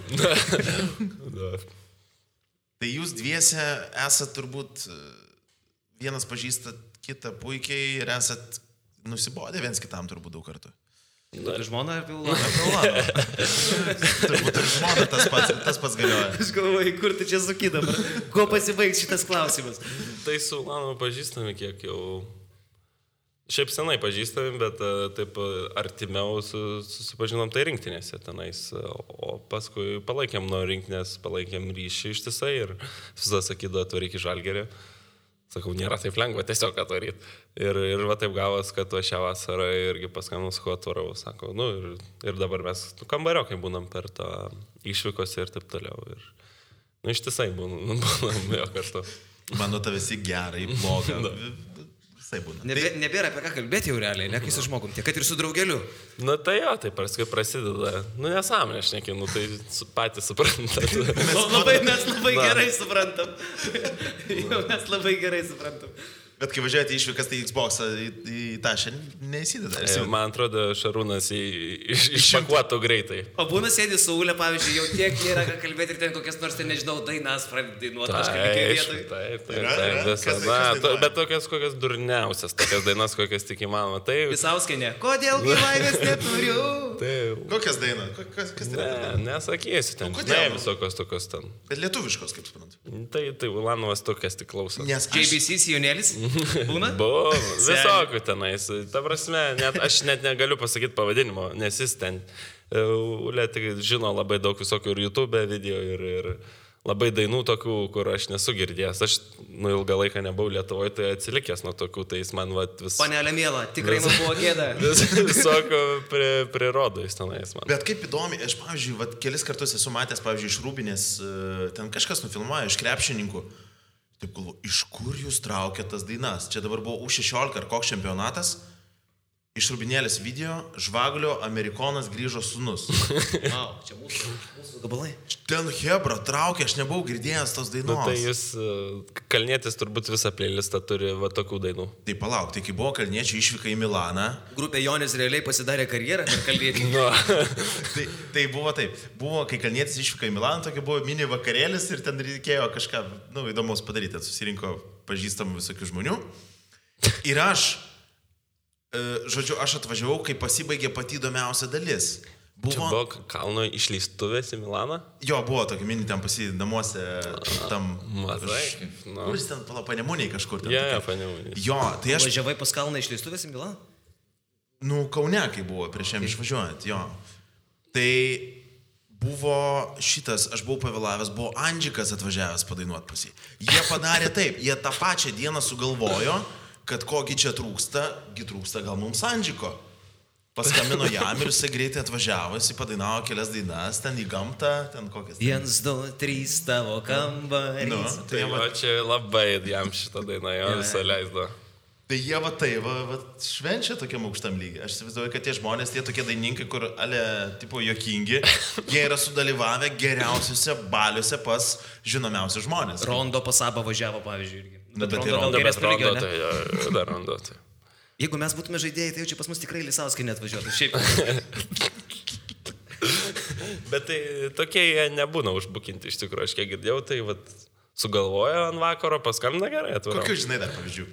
Speaker 2: Tai jūs dviese esat turbūt, vienas pažįstat kitą puikiai ir esat nusibodę viens kitam turbūt daug kartų.
Speaker 1: Nu, tai žmona apie Ulanovą.
Speaker 2: Turbūt ir žmona tas pats galioja.
Speaker 1: Aš galvoju, kur tu čia suki dabar? Kuo pasibaigs šitas klausimas?
Speaker 3: Tai su Ulanovu pažįstami kiek jau... Šiaip senai pažįstami, bet taip artimiau susipažinom tai rinktinėse tenais. O paskui palaikėm nuo rinktinės, palaikėm ryšį ištisai ir visada sakydavo, atvaryk į Žalgirį. Sakau, nėra taip lengva tiesiog atvaryti. Ir va taip gavos, kad va šią vasarą irgi paskambinau, sakau, atvarau. Sako, nu ir dabar mes kambariokai būnam per tą išvykose ir taip toliau. Ir, nu ištisai būnam jo kartu.
Speaker 2: Mano tavęs į gerą, į blogą. Visai būna.
Speaker 1: Nebėra apie ką kalbėti jau realiai, ne kai su žmogum, tiek kad ir su draugeliu.
Speaker 3: Nu tai jo, tai paskui prasideda. Nu nesąmonė, aš nekinu, tai patys suprantat.
Speaker 1: Mes labai gerai suprantam. Mes labai gerai suprantam.
Speaker 2: Bet kai važiuojate išvykas, tai Xbox'ą į tą šiandien neįsideda.
Speaker 3: Man atrodo, Šarūnas išpakuotų greitai.
Speaker 1: O būna sėdi su Ule, pavyzdžiui, jau tiek nėra ką kalbėti ir ten kokias nors, ten nežinau, dainas pradėti dainuoti kažkaip vietoj.
Speaker 3: Taip, bet tokias durniausias, tokias dainas, kokias tik įmanoma.
Speaker 1: Visauskenė. Kodėl gyvaivės neturiu?
Speaker 2: Kokias dainas? Kas tai yra?
Speaker 3: Nesakysiu ten. Ne, visokios tokios ten.
Speaker 2: Bet lietuviškos, kaip suprantu.
Speaker 3: Tai Ulanovas tokias tik klauso.
Speaker 1: JBC Sijonėlis? Būna?
Speaker 3: Buvo, visokių tenais. Ta prasme, aš net negaliu pasakyti pavadinimo, nes jis ten Ule tik žino labai daug visokių ir YouTube video ir labai dainų tokių, kur aš nesu girdėjęs. Aš ilgą laiką nebuvau Lietuvoje, tai atsilikęs nuo tokių, tai jis man vis...
Speaker 1: Panelė miela, tikrai man buvo gėda.
Speaker 3: Visokių prirodo jis tenais man.
Speaker 2: Bet kaip įdomi, aš, pavyzdžiui, kelis kartus esu matęs, pavyzdžiui, iš Rūbinės, ten kažkas nufilmuoja, iš krepšininkų. Taip galvo, iš kur jūs traukėt tas dainas? Čia dabar buvo U16 ar koks čempionatas. Iš Rūbinėlės video Žvagulio Amerikonas grįžo sūnus.
Speaker 1: Wow, čia mūsų gabalai.
Speaker 2: Ten Hebra traukė, aš nebuvau girdėjęs tos dainos.
Speaker 3: Nu, tai jūs, Kalnietis turbūt visą playlistą turi va tokių dainų.
Speaker 2: Tai palauk, tai kai buvo Kalniečių išvyka į Milaną.
Speaker 1: Grupė Jonis realiai pasidarė karjerą per Kalnietį.
Speaker 2: tai buvo taip. Buvo, kai Kalnietis išvyka į Milaną, tokia buvo mini vakarėlis ir ten reikėjo kažką, įdomaus padaryti. Susirinko pažįstamų visokių žmonių. Ir aš atvažiavau, kai pasibaigė pati įdomiausia dalis.
Speaker 3: Čia buvo kalno išleistuvės į Milaną?
Speaker 2: Jo, buvo tokia mini ten namuose tam...
Speaker 3: Matai.
Speaker 2: Kuris ten Panemuniai kažkur ten?
Speaker 3: Ja, Panemuniai.
Speaker 2: Jo, tai aš...
Speaker 1: Važiavai pas kalną išleistuvės į Milaną?
Speaker 2: Nu, Kaune, kai buvo prieš jam išvažiuojant, jo. Tai buvo šitas, aš buvau pavėlavęs, buvo Andžikas atvažiavęs padainuoti pas jį. Jie padarė taip, jie tą pačią dieną sugalvojo, kad kogi čia trūksta gal mums Andžiko. Paskambino jam ir jisai greitai atvažiavo, jisai padainavo kelias dainas, ten į gamtą, ten kokias.
Speaker 1: 1, 2, 3 tavo kambarys.
Speaker 3: Nu, tai čia labai jam šitą dainą jo visą leisdo.
Speaker 2: Tai jie švenčia tokiam aukštam lygiai. Aš įsivaizduoju, kad tie žmonės, tie tokie daininkai, kur tipo juokingi, jie yra sudalyvavę geriausiuose baliuose pas žinomiausius žmonės.
Speaker 1: Rondo pas Abą važiavo, pavyzdžiui, irgi.
Speaker 2: Bet
Speaker 3: Rondo.
Speaker 1: Jeigu mes būtume žaidėjai, tai jau čia pas mus tikrai Lisauskai neatvažiuotų. Šiaip.
Speaker 3: Bet tai tokie jie nebūna užbukinti iš tikrųjų. Aš kiek girdėjau, tai sugalvojo ant vakaro, paskambina gerai atvažiuoju.
Speaker 2: Kokių žinai dar pavyzdžių?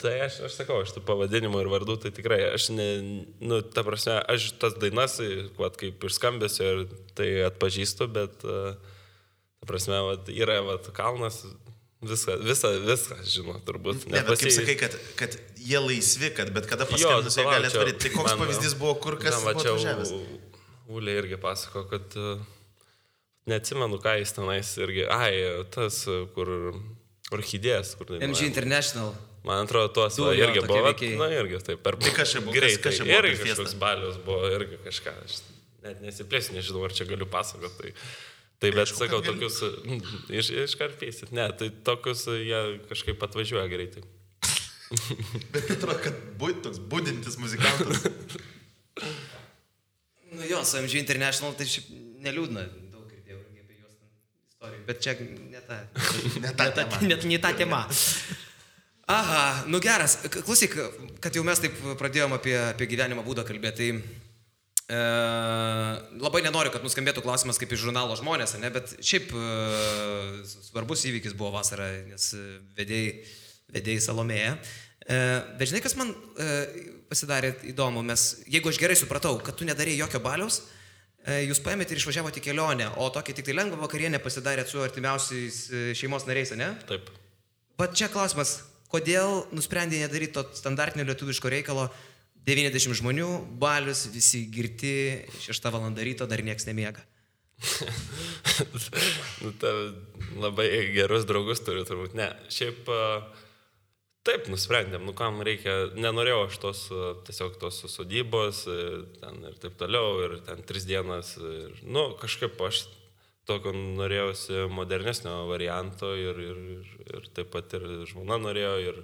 Speaker 3: Tai aš sakau, aš tų pavadinimų ir vardų, tai tikrai aš ta prasme, aš tas dainas, kaip ir skambėsiu, ir tai atpažįstu, bet ta prasme, yra kalnas. Viską žino, turbūt.
Speaker 2: Ne, bet kaip sakai, kad jie laisvi, kad bet kada paskambinus jie gali atvaryti. Tai koks pavyzdys buvo, kur kas buvo atvažiavęs?
Speaker 3: Ulė irgi pasako, kad neatsimenu, ką jis tenais irgi. Tas, kur orchidėjas, kur...
Speaker 1: MG International.
Speaker 3: Man atrodo, tuos irgi buvo. Na, irgi taip.
Speaker 2: Tai kas čia buvo?
Speaker 3: Greitai. Irgi kažkoks balius buvo, irgi kažką. Aš net nesiplėsiu, nežinau, ar čia galiu pasakoti. Tai bet sakau, tokius iškarpysit. Ne, tai tokius jie kažkaip atvažiuoja greitai.
Speaker 2: Bet atrodo, kad toks būdintis muzikantas.
Speaker 1: Nu jo, su MG International tai šiaip neliūdna. Daug girdėjau apie juos istorijų. Bet čia ne ta tema. Aha, nu geras. Klausyk, kad jau mes taip pradėjom apie gyvenimo būdą kalbėti, tai... labai nenoriu, kad nuskambėtų klausimas kaip iš žurnalo Žmonės, ne? Bet šiaip svarbus įvykis buvo vasarą, nes vedėjai Salomėja. Bet žinai, kas man pasidarė įdomu, jeigu aš gerai supratau, kad tu nedarėjai jokio baliaus, jūs paėmėte ir išvažiavote į kelionę, o tokį tik tai lengvą vakarienę pasidarėt su artimiausiais šeimos nariais, ne?
Speaker 3: Taip.
Speaker 1: Bet čia klausimas, kodėl nusprendė nedaryti to standartinio lietuviško reikalo? 90 žmonių, balius, visi girti, 6 valandą ryto, dar nieks nemiega.
Speaker 3: Labai gerus draugus turiu turbūt. Ne, šiaip taip nusprendėm, kam reikia, nenorėjau aš tiesiog tos sodybos ten ir taip toliau, ir ten 3 dienas. Ir, kažkaip aš tokio norėjausi modernesnio varianto ir taip pat ir žmona norėjo ir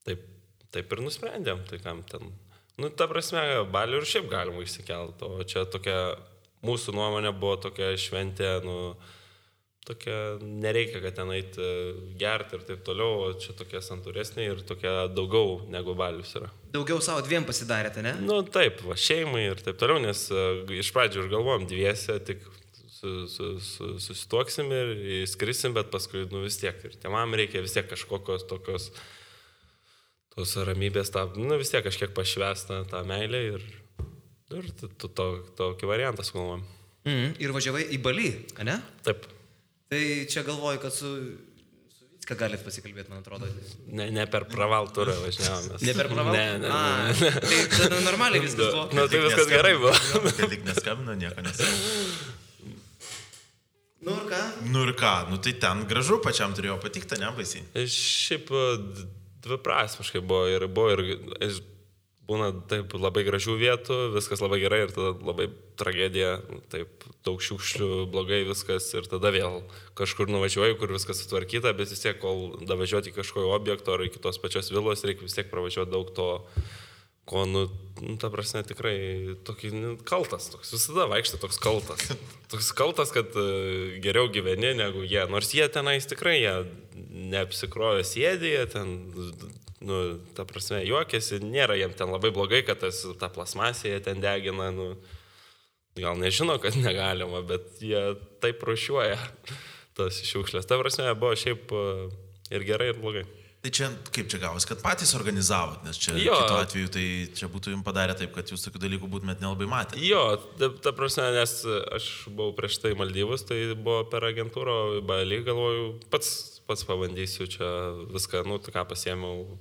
Speaker 3: taip taip ir nusprendėm, tai kam ten. Nu, ta prasme, balių ir šiaip galima išsikelti, o čia tokia, mūsų nuomonė buvo tokia šventė, nu, tokia, nereikia, kad ten eiti gerti ir taip toliau, o čia tokie santūresnė ir tokia daugiau negu balius yra.
Speaker 1: Daugiau savo dviem pasidarėte, ne?
Speaker 3: Nu, taip, va, šeimai ir taip toliau, nes iš pradžių ir galvojom dviese, tik susituoksim ir įskrisim, bet paskui, nu, vis tiek ir tėvam reikia vis tiek kažkokios tokios tos ramybės, nu, vis tiek kažkiek pašvesta tą meilę ir tokį variantą sugalvojom.
Speaker 1: Ir važiavai į Balį, ne?
Speaker 3: Taip.
Speaker 1: Tai čia galvoju, kad su Vicka galit pasikalbėti, man atrodo.
Speaker 3: Ne per praval turą važiavomės.
Speaker 1: Ne per praval?
Speaker 3: Ne.
Speaker 1: Tai tada normaliai viskas buvo.
Speaker 3: Nu, tai viskas gerai buvo.
Speaker 2: Tai tik neskambino, nieko nesakė.
Speaker 1: Nu ir ką?
Speaker 2: Nu tai ten gražu, pačiam turėjo patikti, ne baisiai.
Speaker 3: Šiaip dviprasmiškai buvo ir būna taip labai gražių vietų, viskas labai gerai ir tada labai tragedija, taip daug šiukšlių, blogai viskas ir tada vėl kažkur nuvažiuoju, kur viskas sutvarkyta, bet vis tiek, kol davažiuoti į kažkokio objekto ar iki tos pačios vilos, reikia vis tiek pravažiuoti daug to, ko, nu ta prasme, tikrai tokį kaltas, toks visada vaikštai toks kaltas. Toks kaltas, kad geriau gyveni negu jie, nors jie tenais tikrai, jie neapsikrovė sėdį, jie ten, nu, ta prasme, juokėsi, nėra jiem ten labai blogai, kad ta plasmasė jie ten degina, nu, gal nežino, kad negalima, bet jie taip rūšiuoja tas šiukšlės. Ta prasme, buvo šiaip ir gerai, ir blogai.
Speaker 2: Tai čia, kaip čia gavos, kad patys organizavot, nes čia kitu atveju, tai čia būtų jums padarę taip, kad jūs tokių dalykų būtumėt nelabai matę.
Speaker 3: Jo, ta prasme, nes aš buvau prieš tai Maldyvus, tai buvo per agentūrą Balį, galvoju, pats pabandysiu čia viską, nu, ką pasiėmiau.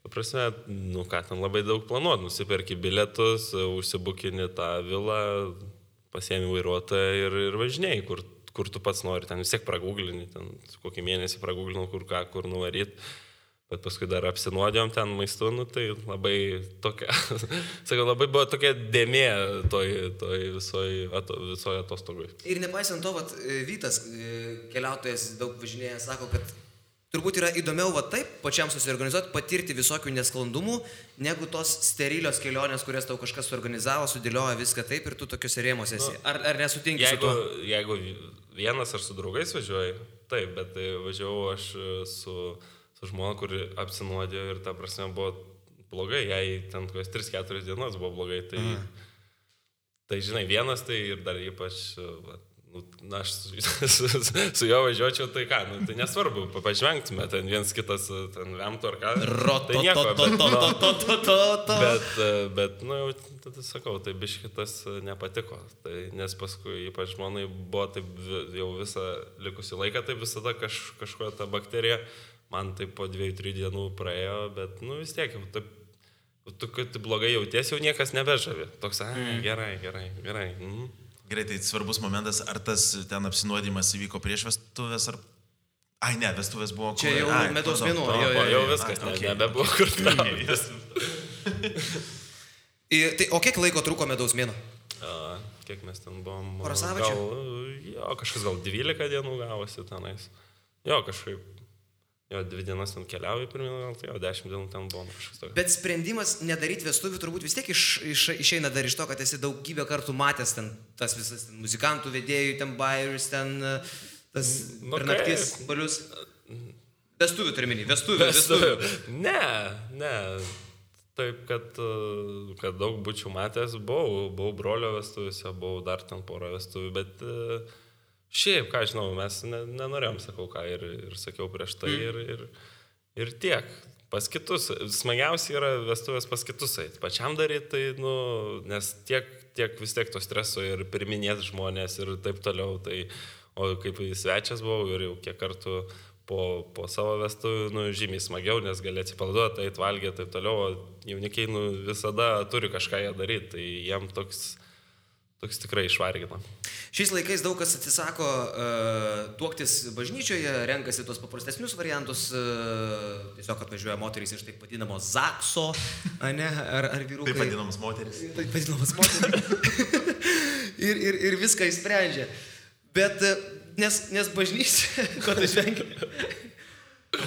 Speaker 3: Ta prasme, nu, ką ten labai daug planuot, nusiperki bilietus, užsibukini tą vilą, pasiėmi vairuotoją ir važinėjai, kur tu pats nori, ten vis tiek praguglini, ten kokį mėnesį praguglinau, kur nuvaryt. Bet paskui dar apsinuodėjom ten maistu, nu, tai labai tokia, sakau, labai buvo tokia dėmė toj visoje atostogui.
Speaker 1: Ir nepaisant to, vat, Vytas, keliautojas daug važinėja, sako, kad turbūt yra įdomiau va taip, pačiam susiorganizuoti, patirti visokių nesklandumų, negu tos sterilios kelionės, kurias tau kažkas suorganizavo, sudėlioja viską taip ir tu tokiuose rėmose esi. Ar nesutinki su tuo?
Speaker 3: Jeigu vienas ar su draugais važiuoji, taip, bet važiavau aš su žmona, kuri apsinuodėjo ir ta prasme buvo blogai, jai ten kokias 3-4 dienos buvo blogai, tai žinai, vienas tai ir dar ypač, na, aš su juo važiuočiau, tai ką, nu, tai nesvarbu, pažvengtume, ten viens kitas, ten vemtų ar ką, tai nieko, bet, nu, tada sakau, tai biškitas nepatiko, tai, nes paskui ypač žmonai buvo taip jau visą likusį laiką, tai visada kažkokia ta bakterija, man tai po 2-3 dienų praėjo, bet, nu, vis tiek, tu, kad blogai jauties, jau niekas nebežavi. Toks, gerai.
Speaker 2: Gerai, tai svarbus momentas, ar tas ten apsinuodimas įvyko prieš vestuvės, ar... Ai, ne, vestuvės buvo...
Speaker 1: Čia jau medaus mėnuo.
Speaker 3: Jau viskas, nebebuvo kur trauktis.
Speaker 1: O kiek laiko truko medaus mėnuo?
Speaker 3: Kiek mes ten buvom?
Speaker 1: Porą savaičių?
Speaker 3: Jo, kažkas gal 12 dienų gavosi tenais. Jo, kažkaip... Jo, 2 dienas ten keliauju pirmyn, gal tai jau 10 dienų ten buvom kažkas tokio.
Speaker 1: Bet sprendimas nedaryti vestuvių turbūt vis tiek išeina dar iš to, kad esi daugybę kartų matęs ten tas visas ten, muzikantų vedėjų, ten bairius, ten tas per naktis balius. Vestuvių turminį, vestuvių. Ne. Taip, kad daug būčiau matęs, buvau brolio vestuvėse, buvau dar ten porą vestuvių, bet... Šiaip, ką žinau, mes nenorėjom, sakau ką, ir sakiau prieš tai, ir tiek. Pas kitus, smagiausia yra vestuvės pas kitus eit. Pačiam daryti, tai, nu, nes tiek vis tiek to streso ir pirminės žmonės ir taip toliau. Tai, o kaip svečias buvau ir jau kiek kartų po savo vestuvių, nu, žymiai smagiau, nes gali atsipalduoti, eit valgyti, taip toliau. O jaunikiai, nu, visada turi kažką jie daryti, tai jiem toks tikrai išvargina. Šiais laikais daug kas atsisako tuoktis bažnyčioje, renkasi tos paprastesnius variantus, tiesiog atvažiuoja moterys iš taip vadinamo zakso, ne, ar vyrukai.
Speaker 2: Taip vadinamas moteris.
Speaker 1: Taip vadinamas moteris. ir viską išsprendžia. Bet, nes bažnyčia, ko tu žvengi?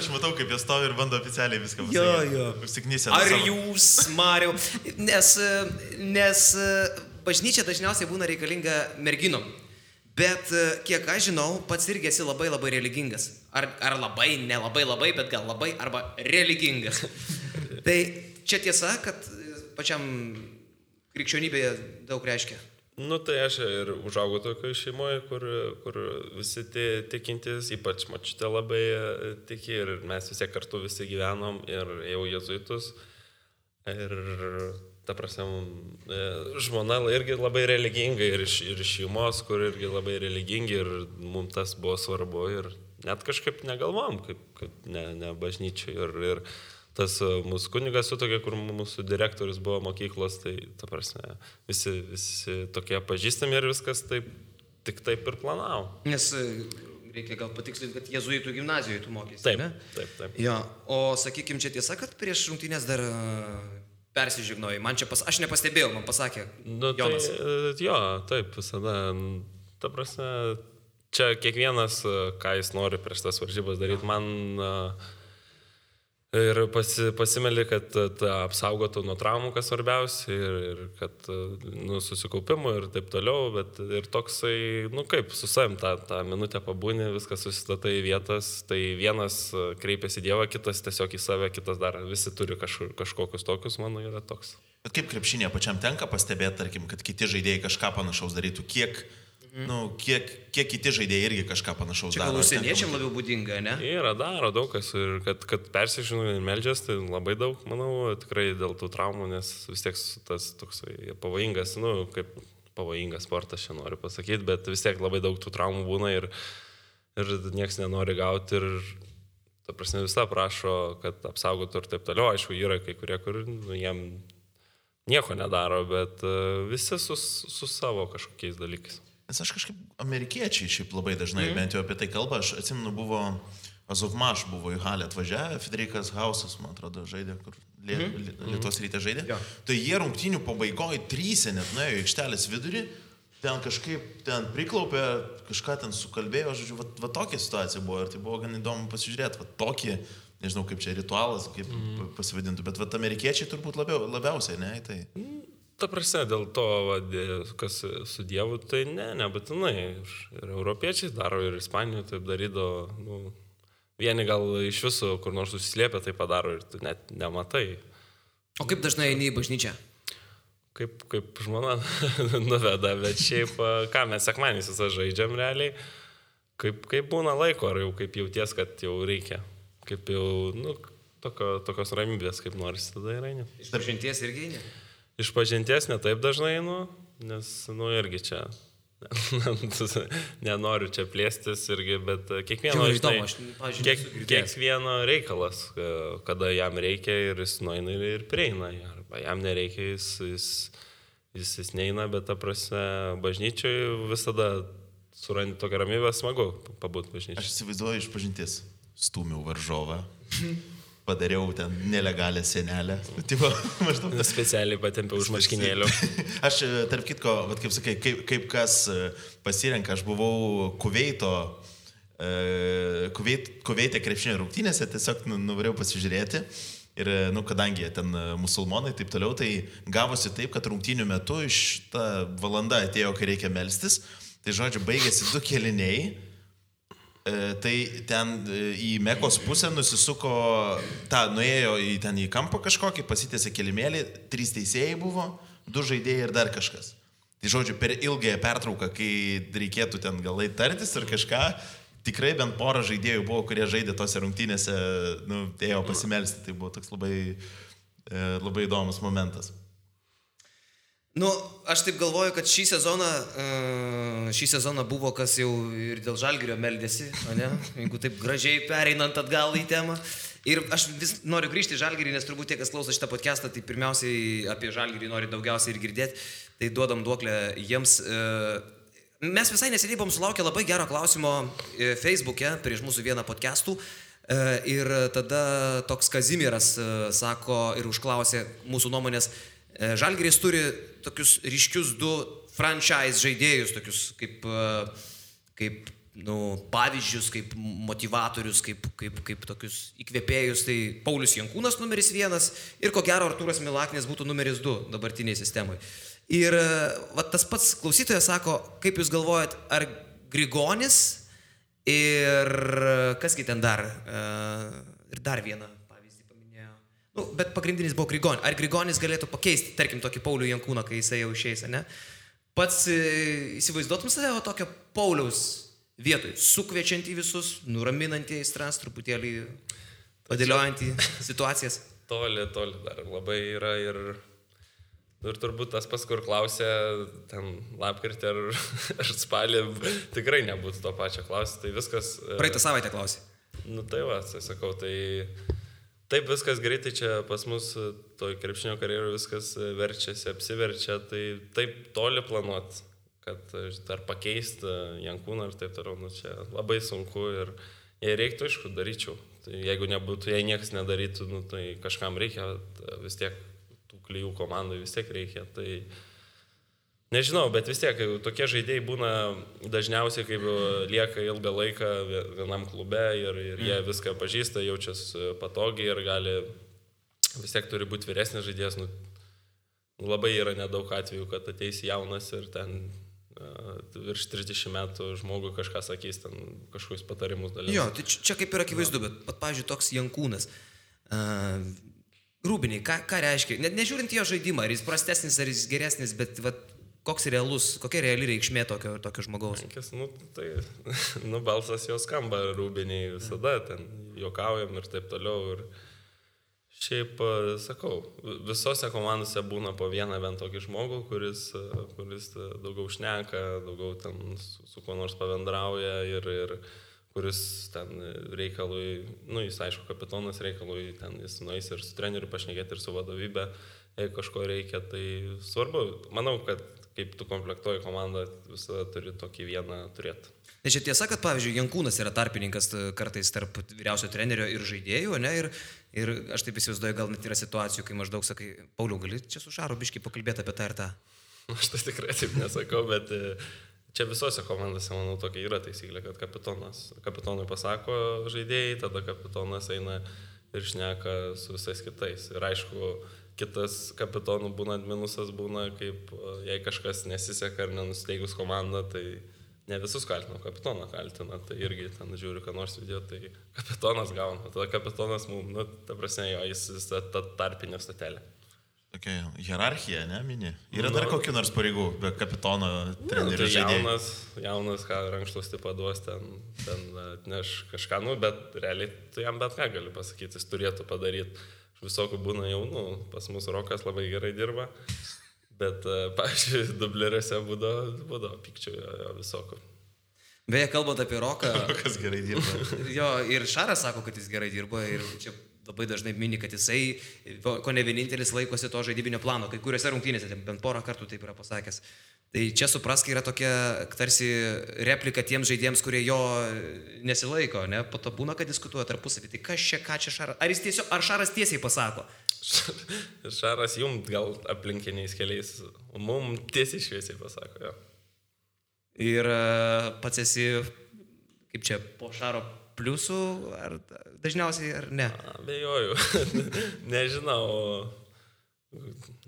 Speaker 2: Aš matau, kaip jie stovi ir bando oficialiai viską
Speaker 1: Jo.
Speaker 2: Užsiknysę.
Speaker 1: Ar jūs, Mariau? Nes bažnyčia dažniausiai būna reikalinga merginom. Bet kiek aš žinau, pats irgi esi labai labai religingas. Ar labai, nelabai, bet gal labai, arba religingas. Tai čia tiesa, kad pačiam krikščionybėje daug reiškia.
Speaker 3: Nu tai aš ir užaugau tokioje šeimoje, kur visi tikintys, ypač močiutė labai tiki ir mes visi kartu visi gyvenom ir jau jėzuitus. Ir ta prasme, žmona irgi labai religinga ir iš šeimos, kur irgi labai religingi ir mums tas buvo svarbu ir net kažkaip negalvom, kaip ne bažnyčiai. Ir tas mūsų kunigas sutokė, kur mūsų direktorius buvo mokyklos, tai ta prasme, visi tokie pažįstami ir viskas tik taip ir planavo.
Speaker 1: Nes reikia gal patikslinti, kad jėzuitų gimnazijoje tu mokėsi.
Speaker 3: Taip.
Speaker 1: Jo, o sakykim, čia tiesa, kad prieš rungtynės dar persižegnojai. Aš nepastebėjau, man pasakė Jonas.
Speaker 3: Taip, visada. Ta prasme, čia kiekvienas, ką jis nori prieš tas varžybas daryti, man ir pasimeli, kad apsaugotų nuo traumų, kas svarbiausia, ir kad susikaupimų ir taip toliau, bet ir toksai, kaip su savim tą minutę pabūni, viskas susistatai į vietas, tai vienas kreipiasi į Dievą, kitas tiesiog į save, kitas dar visi turi kažkokius tokius, mano yra toks.
Speaker 2: Bet kaip krepšinėje pačiam tenka pastebėti, tarkim, kad kiti žaidėjai kažką panašaus darytų, kiek kiti žaidėjai irgi kažką panašaus daro.
Speaker 1: Čia gal užsieniečiam labiau būdinga, ne?
Speaker 3: Daro daug kas ir kad persižino ir meldžias, tai labai daug, manau, tikrai dėl tų traumų, nes vis tiek tas toksai pavojingas, kaip pavojingas sportas, čia noriu pasakyti, bet vis tiek labai daug tų traumų būna ir nieks nenori gauti ir, ta prasme, visą prašo, kad apsaugotų ir taip toliau. Aišku, yra kai kurie, kur jiem nieko nedaro, bet visi su savo kažkokiais dalykais.
Speaker 2: Nes aš kažkaip amerikiečiai šiaip labai dažnai bent jau apie tai kalba. Aš atsimenu, buvo Azovmaš, buvo į halę atvažiavę, Federikas Hausas, man atrodo, žaidė, kur Lietuvos Ryte žaidė. Ja. Tai jie rungtynių pabaigoje 3 net nuėjo į aikštelės vidurį, ten priklaupė, kažką ten sukalbėjo, žodžiu, va tokia situacija buvo ir tai buvo gan įdomu pasižiūrėti, va tokį, nežinau kaip čia ritualas, kaip pasivadintų, bet va amerikiečiai turbūt labiausiai, ne, tai...
Speaker 3: Ta prasme, dėl to, kas su Dievu, tai nebūtinai. Ir europiečiai daro, ir Ispanijoje taip darydavo. Vieni gal iš viso, kur nors susislėpia, tai padaro ir tu net nematai.
Speaker 1: O kaip dažnai eini į bažnyčią?
Speaker 3: Kaip žmona nuveda, bet šiaip, ką mes sekmadieniais visą žaidžiam realiai, kaip būna laiko, ar jau kaip jauties, kad jau reikia. Kaip jau, tokios ramybės, kaip norisi tada ir eini.
Speaker 1: Iš pažinties irgi eini?
Speaker 3: Iš pažinties ne taip dažnai, nes, irgi čia, nenoriu čia plėstis irgi, bet kiekvieno reikalas, kada jam reikia ir jis nueina ir prieina, arba jam nereikia, jis neina, bet ta prasme, bažnyčiai visada surandi tokią ramybę, smagu pabūti bažnyčiai.
Speaker 2: Aš įsivaizduoju iš pažinties, stūmiau varžovą. Padariau ten nelegalią senelę.
Speaker 3: Specialiai patempiau už marškinėlių.
Speaker 2: Aš, tarp kitko, kaip sakai, kaip kas pasirenka, aš buvau Kuveite krepšinio rungtynėse, tiesiog nuvarėjau pasižiūrėti. Ir, kadangi ten musulmonai taip toliau, tai gavosi taip, kad rungtynių metu iš ta valanda atėjo, kai reikia melstis. Tai, žodžiu, baigėsi 2 kėliniai. Tai ten į Mekos pusę nusisuko, nuėjo į kampą kažkokį, pasitėsi kelimėlį, 3 teisėjai buvo, 2 žaidėjai ir dar kažkas. Tai žodžiu, per ilgąją pertrauką, kai reikėtų ten galai tartis ir kažką, tikrai bent porą žaidėjų buvo, kurie žaidė tose rungtynėse, ėjo pasimelsti. Tai buvo toks labai įdomus momentas.
Speaker 1: Aš taip galvoju, kad šį sezoną buvo, kas jau ir dėl Žalgirio meldėsi, ne? Jeigu taip gražiai pereinant atgal į temą. Ir aš vis noriu grįžti į Žalgirį, nes turbūt tie, kas klauso šitą podcastą, tai pirmiausiai apie Žalgirį nori daugiausiai ir girdėti, tai duodam duoklę jiems. Mes visai neseniai buvom sulaukę labai gero klausimo Facebook'e prieš mūsų vieną podcastų. Ir tada toks Kazimieras sako ir užklausė mūsų nuomonės. Žalgiris turi tokius ryškius 2 franchise žaidėjus, tokius kaip pavyzdžius, kaip motivatorius, kaip tokius įkvėpėjus, tai Paulius Jankūnas numeris 1 ir ko gero Artūras Milaknis būtų numeris 2 dabartiniai sistemai. Ir tas pats klausytojas sako, kaip jūs galvojat, ar Grigonis ir kasgi ten dar, ir dar vieną pavyzdį paminėjo. Bet pagrindinis buvo Grigonis. Ar Grigonis galėtų pakeisti, tarkim, tokį Paulių Jankūną, kai jisai jau išeis, ne? Pats įsivaizduotum save tokio Pauliaus vietoj, sukviečiantį visus, nuraminantį aistras, truputėlį padėliojantį situacijas?
Speaker 3: Toli dar labai yra ir turbūt tas pas, kur klausė, ten lapkritį ar spalį, tikrai nebūtų to pačio klausyti, tai viskas...
Speaker 1: Praeitą savaitę klausė.
Speaker 3: Tai va, tai sakau, tai... Taip viskas greitai čia pas mus toj krepšinio karjeroje viskas verčiasi, apsiverčia, tai taip toli planuot, kad dar pakeisti Jankūną ir taip toliau, čia labai sunku ir jei reiktų, aišku, daryčiau. Tai jeigu nebūtų, jei niekas nedarytų, tai kažkam reikia, vis tiek tų klijų komandai vis tiek reikia, tai nežinau, bet vis tiek tokie žaidėjai būna dažniausiai, kaip lieka ilgą laiką vienam klube ir jie viską pažįsta, jaučiasi patogiai ir gali, vis tiek turi būti vyresnis žaidėjas. Labai yra nedaug atvejų, kad ateis jaunas ir ten virš 30 metų žmogui kažką sakys, ten kažkokius patarimus dalys.
Speaker 1: Jo, tai čia kaip ir akivaizdu, bet pavyzdžiui, toks Jankūnas. Rūbiniai, ką reiškia? Net nežiūrint jo žaidimą, ar jis prastesnis, ar jis geresnis, bet kokia reali reikšmė tokio žmogaus?
Speaker 3: Tai balsas jo skamba Rūbiniai visada, ten juokaujam ir taip toliau. Ir šiaip, sakau, visose komandose būna po vieną bent tokį žmogų, kuris daugiau šneka, daugiau ten su kuo nors pabendrauja ir kuris ten reikalui, jis aišku kapitonas reikalui, ten jis nueis ir su treneriu pašnekėti ir su vadovybė, jeigu kažko reikia, tai svarbu. Manau, kad kaip tu komplektuoji komandą, visada turi tokį vieną turėti.
Speaker 1: Nes čia tiesa, kad, pavyzdžiui, Jankūnas yra tarpininkas kartais tarp vyriausio trenerio ir žaidėjų, ne? Ir aš taip įsivaizduoju, gal net yra situacijų, kai maždaug sakai, Pauliau, gali čia su Šaru biškį pakalbėti apie tą ir tą?
Speaker 3: Aš tai tikrai taip nesakau, bet čia visose komandose, manau, tokia yra taisyklė, kad kapitonui pasako žaidėjai, tada kapitonas eina ir šneka su visais kitais. Ir aišku, kitas kapitonų būna minusas, būna kaip jei kažkas nesiseka ar nenusteigus komandą, tai ne visus kaltina, kapitoną kaltina, tai irgi ten žiūri, ką nors video, tai kapitonas gauna, tada kapitonas mums, ta prasme, jis ta tarpinė statelė.
Speaker 2: Tokia hierarchija, ne, mini? Yra dar kokių nors pareigų, be kapitono trenerių žaidėjų?
Speaker 3: Jaunas, ką rankšluostį paduos, ten atneš kažką, bet realiai tu jam bet ką gali pasakyti, jis turėtų padaryti. Visokių būna jaunų, pas mus Rokas labai gerai dirba, bet, pavyzdžiui, dubleriuose būdavo pykčių visokių.
Speaker 1: Beje, kalbant apie Roką...
Speaker 2: Rokas gerai dirba.
Speaker 1: Jo, ir Šaras sako, kad jis gerai dirba ir čia labai dažnai mini, kad jisai, ko ne vienintelis laikosi to žaidybinio plano, kai kuriuose rungtynėse, bent porą kartų taip yra pasakęs. Tai čia suprask, yra tokia tarsi replika tiems žaidėjams, kurie jo nesilaiko, ne? Po to būna, kad diskutuoja tarpusavį. Tai ką čia Šaras? Ar Šaras tiesiai pasako?
Speaker 3: Šaras jums gal aplinkiniais keliais, o mums tiesiai šviesiai pasako, jo.
Speaker 1: Ir pats esi, kaip čia, po Šaro pliusų, ar dažniausiai, ar ne?
Speaker 3: Abejoju. Nežinau.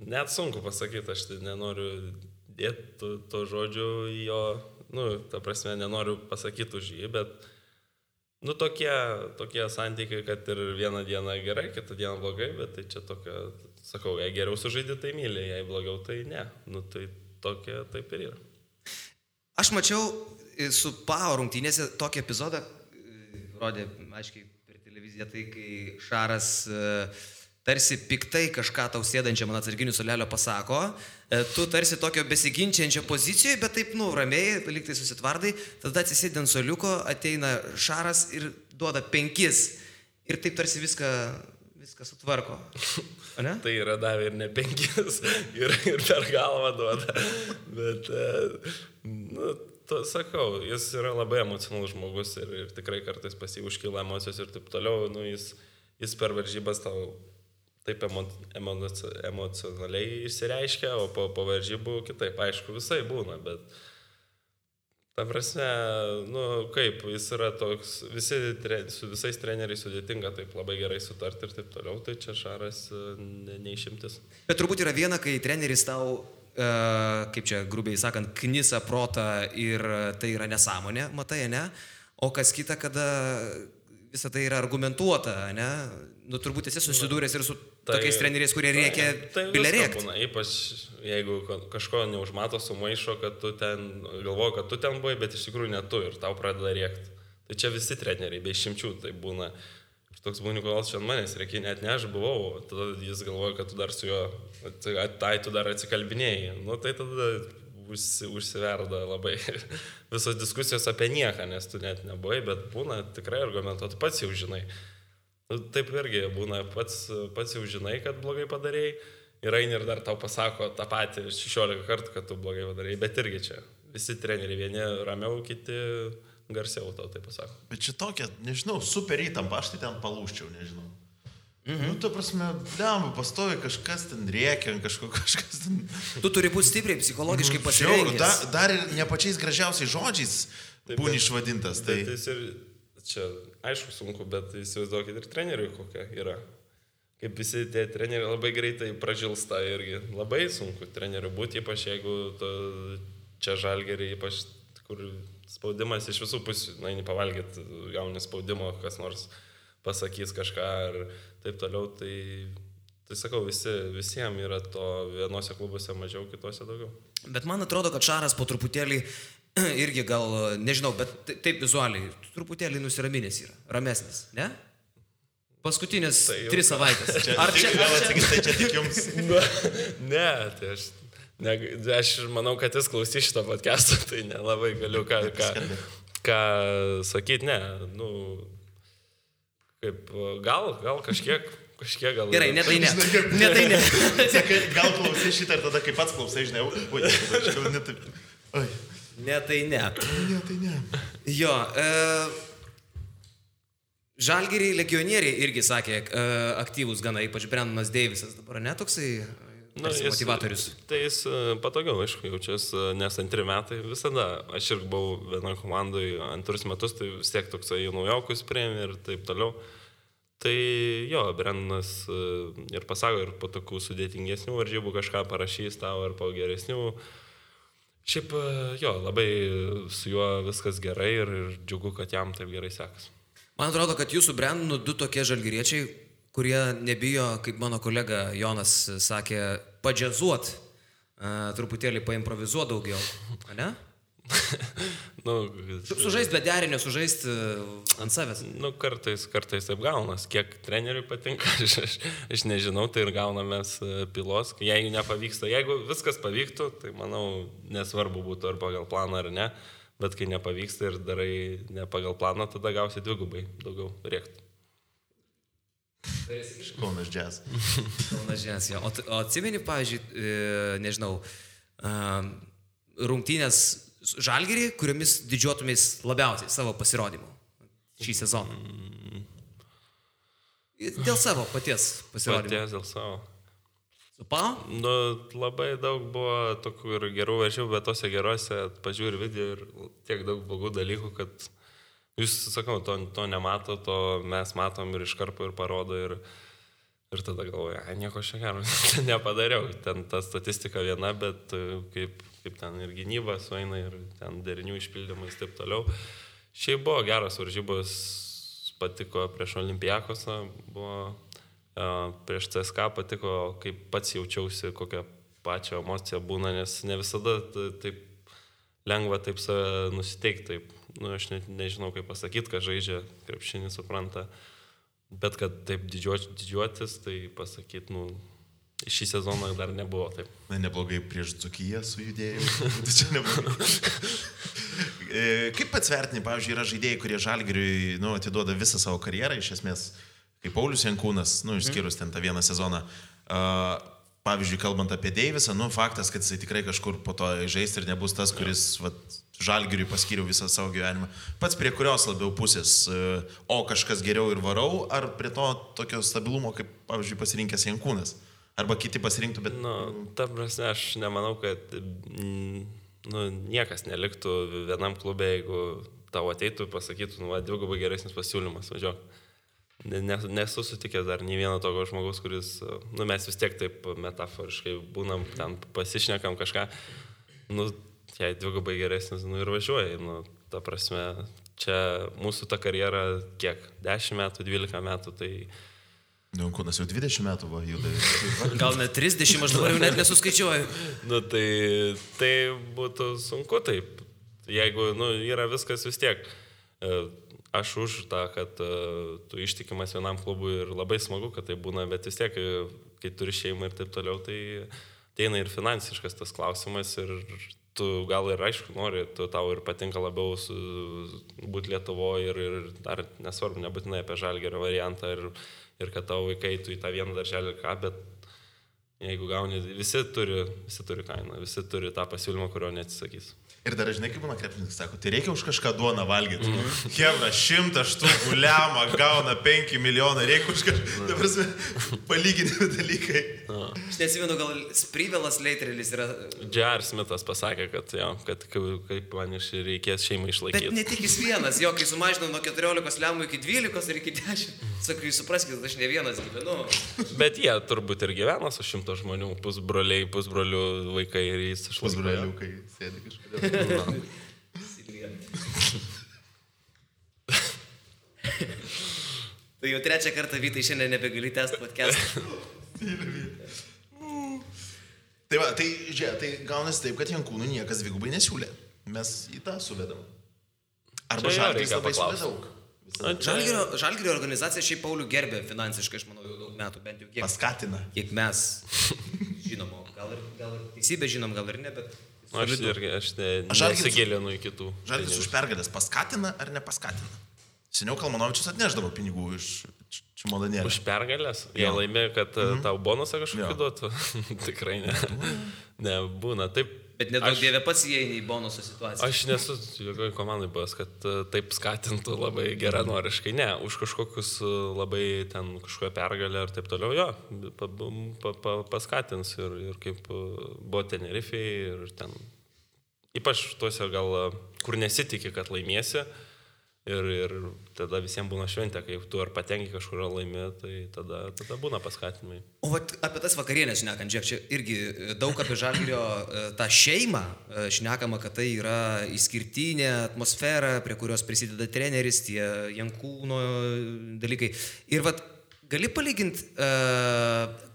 Speaker 3: Net sunku pasakyti, aš tai nenoriu dėti to žodžių į jo, ta prasme, nenoriu pasakyti už jį, bet, tokie santykiai, kad ir vieną dieną gerai, kitą dieną blogai, bet tai čia tokia, sakau, jei geriau sužaidė, tai myli, jei blogiau, tai ne. Tai tokia taip ir yra.
Speaker 1: Aš mačiau su PAO rungtynėse tokį epizodą, rodė, aiškiai, per televiziją, tai kai Šaras tarsi piktai kažką tau sėdančiam ant atsarginių suolelio pasako, tu tarsi tokio besiginčiančio pozicijoje, bet taip, ramiai, liktai susitvardai, tada atsisėdi ant suoliuko, ateina Šaras ir duoda 5 ir taip tarsi viską sutvarko. O ne?
Speaker 3: Tai yra davė ir ne 5 ir per galvą duoda, bet, sakau, jis yra labai emocionalus žmogus ir tikrai kartais pas jį užkyla emocijos ir taip toliau, jis per varžybas tau taip emocionaliai išsireiškia, o po varžybų kitaip, aišku, visai būna, bet Ta prasme, kaip, jis yra toks, su visais treneriais sudėtinga taip labai gerai sutarti ir taip toliau, tai čia Šaras neišimtis.
Speaker 1: Bet turbūt yra viena, kai treneris tau, kaip čia grubiai sakant, knisa protą ir tai yra nesąmonė, matai, ne? O kas kita, kada visą tai yra argumentuota, ne? Turbūt esi susidūręs ir su tokiais treneriais, kurie reikia bilę rėkti.
Speaker 3: Ypač jeigu kažko neužmato sumaišo, kad tu ten galvoji, kad tu ten buvai, bet iš tikrųjų ne tu ir tau pradeda rėkti. Tai čia visi treneriai, be išimčių tai būna. Ir toks būni, kodėl čia manęs reikia, net ne aš buvau, tada jis galvoja, kad tu dar su juo, tu dar atsikalbinėjai. Tai tada užsiverda labai visos diskusijos apie nieką, nes tu net nebuvai, bet būna tikrai argumentuoti, pats jau žinai. Taip irgi būna, pats jau žinai, kad blogai padarėjai ir eini ir dar tau pasako tą patį 16 kartų, kad tu blogai padarėjai, bet irgi čia visi treneriai, vieni ramiau, kiti garsiau tau tai pasako.
Speaker 2: Bet čia tokia, nežinau, super įtampa, aš tai ten palūščiau, nežinau. Tu prasme, pastovi kažkas ten rėkia, kažkas ten...
Speaker 1: Tu turi būti stipriai psichologiškai pasirengęs.
Speaker 2: Dar ir ne pačiais gražiausiais žodžiais būni išvadintas. Tai
Speaker 3: jis ir, čia aišku sunku, bet įsivaizduokit ir treneriui kokia yra. Kaip visi tie treneriai labai greitai pražilsta irgi. Labai sunku treneriui būti, ypač jeigu čia Žalgirį, ypač kur spaudimas iš visų pusių, eini pavalgyti, gauni spaudimo, kas nors pasakys kažką ir taip toliau, tai sakau, visiems yra to vienose klubuose mažiau, kitose daugiau.
Speaker 1: Bet man atrodo, kad Šaras po truputėlį irgi gal, nežinau, bet taip vizualiai, truputėlį nusiraminęs yra, ramesnis, ne? Paskutinės 3 savaitės.
Speaker 2: Ar čia tik jums?
Speaker 3: Ne, tai aš manau, kad jis klausys šitą podcastą, tai nelabai galiu ką sakyti, ne, kaip, gal kažkiek gal...
Speaker 1: Gerai, ne tai ne.
Speaker 2: Sakai, gal klausai šitą ir tada kaip pats klausai, žinai,
Speaker 1: Ne tai ne. Jo, Žalgirį legionieriai irgi sakė aktyvus gana, ypač Brendonas Deivisas dabar, ne toksai motivatorius.
Speaker 3: Tai jis patogiau, aišku, jaučias, nes 2 metai visada, aš irgi buvau vienoje komandoje 2 metus, tai vis tiek toksai naujokus priėmė ir taip toliau. Tai jo, Brendonas ir pasako, ir po tokių sudėtingesnių varžybų kažką parašys tau, ir po geresnių. Šiaip jo, labai su juo viskas gerai ir džiugu, kad jam taip gerai sekas.
Speaker 1: Man atrodo, kad jūsų Brendonų 2 tokie žalgiriečiai, kurie nebijo, kaip mano kolega Jonas sakė, padžiazuot, truputėlį paimprovizuot daugiau, ne? Sužaist be derinio, sužaist ant savęs.
Speaker 3: Kartais taip gaunas. Kiek treneriui patinka, aš nežinau, tai ir gaunamės pilos. Jeigu nepavyksta, jeigu viskas pavyktų, tai manau, nesvarbu būtų ar pagal planą ar ne, bet kai nepavyksta ir darai ne pagal planą, tada gausi 2 daugiau rėktų.
Speaker 2: Kaunas Jazz.
Speaker 1: Kaunas Jazz, jo. O atsimeni, pavyzdžiui, nežinau, rungtynės Žalgirį, kuriomis didžiuotumės labiausiai savo pasirodymu šį sezoną? Dėl savo paties pasirodymo.
Speaker 3: Paties dėl savo.
Speaker 1: Su Pau?
Speaker 3: Labai daug buvo tokių ir gerų varžybų, bet tose gerose pažiūri video ir tiek daug blogų dalykų, kad jūs, sakau, to nemato, to mes matom ir iš karto ir parodo ir tada galvoju, nieko čia gero nepadariau. Ten ta statistika viena, bet kaip ten ir gynyba sueina ir ten derinių išpildymais taip toliau. Šiaip buvo geros varžybos, patiko prieš Olimpiakosą, buvo prieš CSKA patiko, kaip pats jaučiausi, kokią pačią emociją būna, nes ne visada taip lengva taip save nusiteikti, taip. Aš nežinau, kaip pasakyti, kad žaidžia krepšinį, supranta, bet kad taip didžiuotis, tai pasakyti, šį sezoną dar nebuvo taip.
Speaker 2: Neblogai prieš Dzūkiją sujudėjau, tai čia neblogai. Kaip pats vertini, pavyzdžiui, yra žaidėjai, kurie Žalgiriui atiduoda visą savo karjerą, iš esmės, kaip Paulius Jankūnas, išskyrus ten tą vieną sezoną. Pavyzdžiui, kalbant apie Deivisą, faktas, kad jisai tikrai kažkur po to žaisti ir nebus tas, kuris Žalgiriui paskyriau visą savo gyvenimą. Pats prie kurios labiau pusės, o kažkas geriau ir varau, ar prie to tokio stabilumo, kaip, pavyzdžiui, pasirinkęs Jankūnas? Arba kiti pasirinktų, bet...
Speaker 3: Ta prasme, aš nemanau, kad niekas neliktų vienam klube, jeigu tavo ateitų, pasakytų, dvigubai geresnis pasiūlymas, važiuok. Nesu sutikęs dar nei vieno tokio žmogaus, kuris, mes vis tiek taip metaforiškai būnam, ten pasišnekam kažką, jei dvigubai geresnis, ir važiuoji, ta prasme, čia mūsų ta karjera kiek, 10 metų, 12 metų, tai...
Speaker 2: Kūnas jau 20 metų buvo juda.
Speaker 1: Gal net 30, aš dabar jau net nesuskaičiuoju.
Speaker 3: Tai būtų sunku taip, jeigu, yra viskas vis tiek. Aš už tą, kad tu ištikimas vienam klubui ir labai smagu, kad tai būna, bet vis tiek, kai turi šeimą ir taip toliau, tai ateina ir finansiškas tas klausimas ir tu gal ir aišku nori, tau ir patinka labiau būti Lietuvoje ir dar nesvarbu, nebūtinai apie Žalgirio variantą ir kad tavo vaikai tu į tą vieną darželį ką, bet jeigu gauni, visi turi kainą, visi turi tą pasiūlymą, kurio neatsisakys.
Speaker 2: Ir dar žinai, kaip būna krepšininkas, sako, tai reikia už kažką duoną valgyti. Hebra, 100 štukų lemą gauna 5 milijonai, reikia už kažką, ta prasme, palyginti dalykai.
Speaker 1: Aš neatsimenu, gal Sprivelas Leitrelis yra...
Speaker 3: J.R. Smithas pasakė, kad kaip man reikės šeimą išlaikyti.
Speaker 1: Bet ne tik jis vienas, kai sumažinau nuo 14 lemų iki 12 ir iki 10. Sakai, jūs supraskite, aš ne vienas gyvenu.
Speaker 3: Bet jie turbūt ir gyvena su 100 žmonių, pusbroliai, pusbrolių vaikai ir jis išlaikė.
Speaker 2: Pusbroliukai sėdi kažkodėl.
Speaker 1: Tai jau 3 kartą, Vytai, šiandien nebegali tęsti podcast'ą.
Speaker 2: Tai žiūrėk, tai gaunasi taip, kad Jankūnų niekas dvigubai nesiūlė. Mes į tą suvedam. Arba Žalgiris labai siūlė daug.
Speaker 1: Žalgirio organizacija šiaip Paulių gerbė finansiškai, aš manau, jau daug metų, bent jau kiek.
Speaker 2: Paskatina.
Speaker 1: Kiek mes žinom, gal ir teisybė žinom, gal ir ne, bet...
Speaker 3: Aš nesigilinu į kitų.
Speaker 2: Žalgiris už pergalės paskatina ar nepaskatina? Seniau Kalmanovičius atneždavo pinigų iš čemodanėlio.
Speaker 3: Už pergalės? Jie laimė, kad tau bonusą kažkokį duotų? Tikrai ne. Nebūna. Taip.
Speaker 1: Bet nedaug dievė pats įeini į bonusų situaciją.
Speaker 3: Aš nesu jokioj komandai buvęs, kad taip skatintų labai geranoriškai. Ne, už kažkokius labai ten kažkokią pergalę ir taip toliau, jo, paskatins ir kaip buvo Tenerifei ir ten, ypač tuose gal, kur nesitikė, kad laimėsi. Ir tada visiems būna šventė, kai tu ar patenki kažkur laimė, tai tada būna paskatinimai.
Speaker 1: O apie tas vakarienės šnekant, žiūrėk, čia irgi daug apie Žalgirio tą šeimą šnekama, kad tai yra išskirtinė atmosfera, prie kurios prisideda treneris, tie Jankūno dalykai. Ir gali palyginti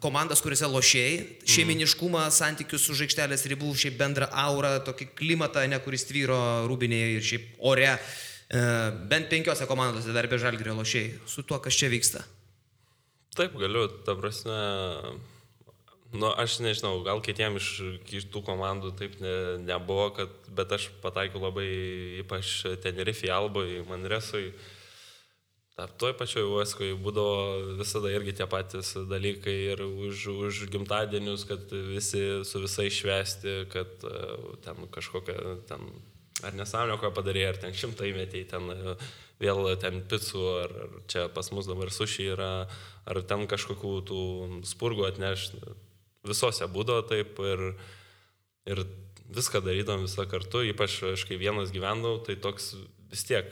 Speaker 1: komandas, kuriuose lošėjai, šeiminiškumą, santykius su žaikštelės ribų, šiaip bendrą aurą, tokį klimatą, kuris tvyro Rūbinėje ir šiaip ore. Bent 5 komandose dar be Žalgirio lošėjai. Su tuo, kas čia vyksta?
Speaker 3: Taip, galiu, ta prasme, aš nežinau, gal kitiem iš kitų komandų taip nebuvo, bet aš pataikiau labai, ypač Tenerifei, Albai, Manresui. Toj pačioj Uoskoje būdavo visada irgi tie patys dalykai ir už gimtadienius, kad visi su visais švęsti, kad ten kažkokia ten... Ar nesąmonė, ką padarė, ar ten 100 metėjai, ten vėl ten picų, ar čia pas mus dabar suši yra, ar ten kažkokių tų spurgų atneš. Visose būdavo taip ir viską darydom visą kartu, ypač aš kai vienas gyvendavau, tai toks vis tiek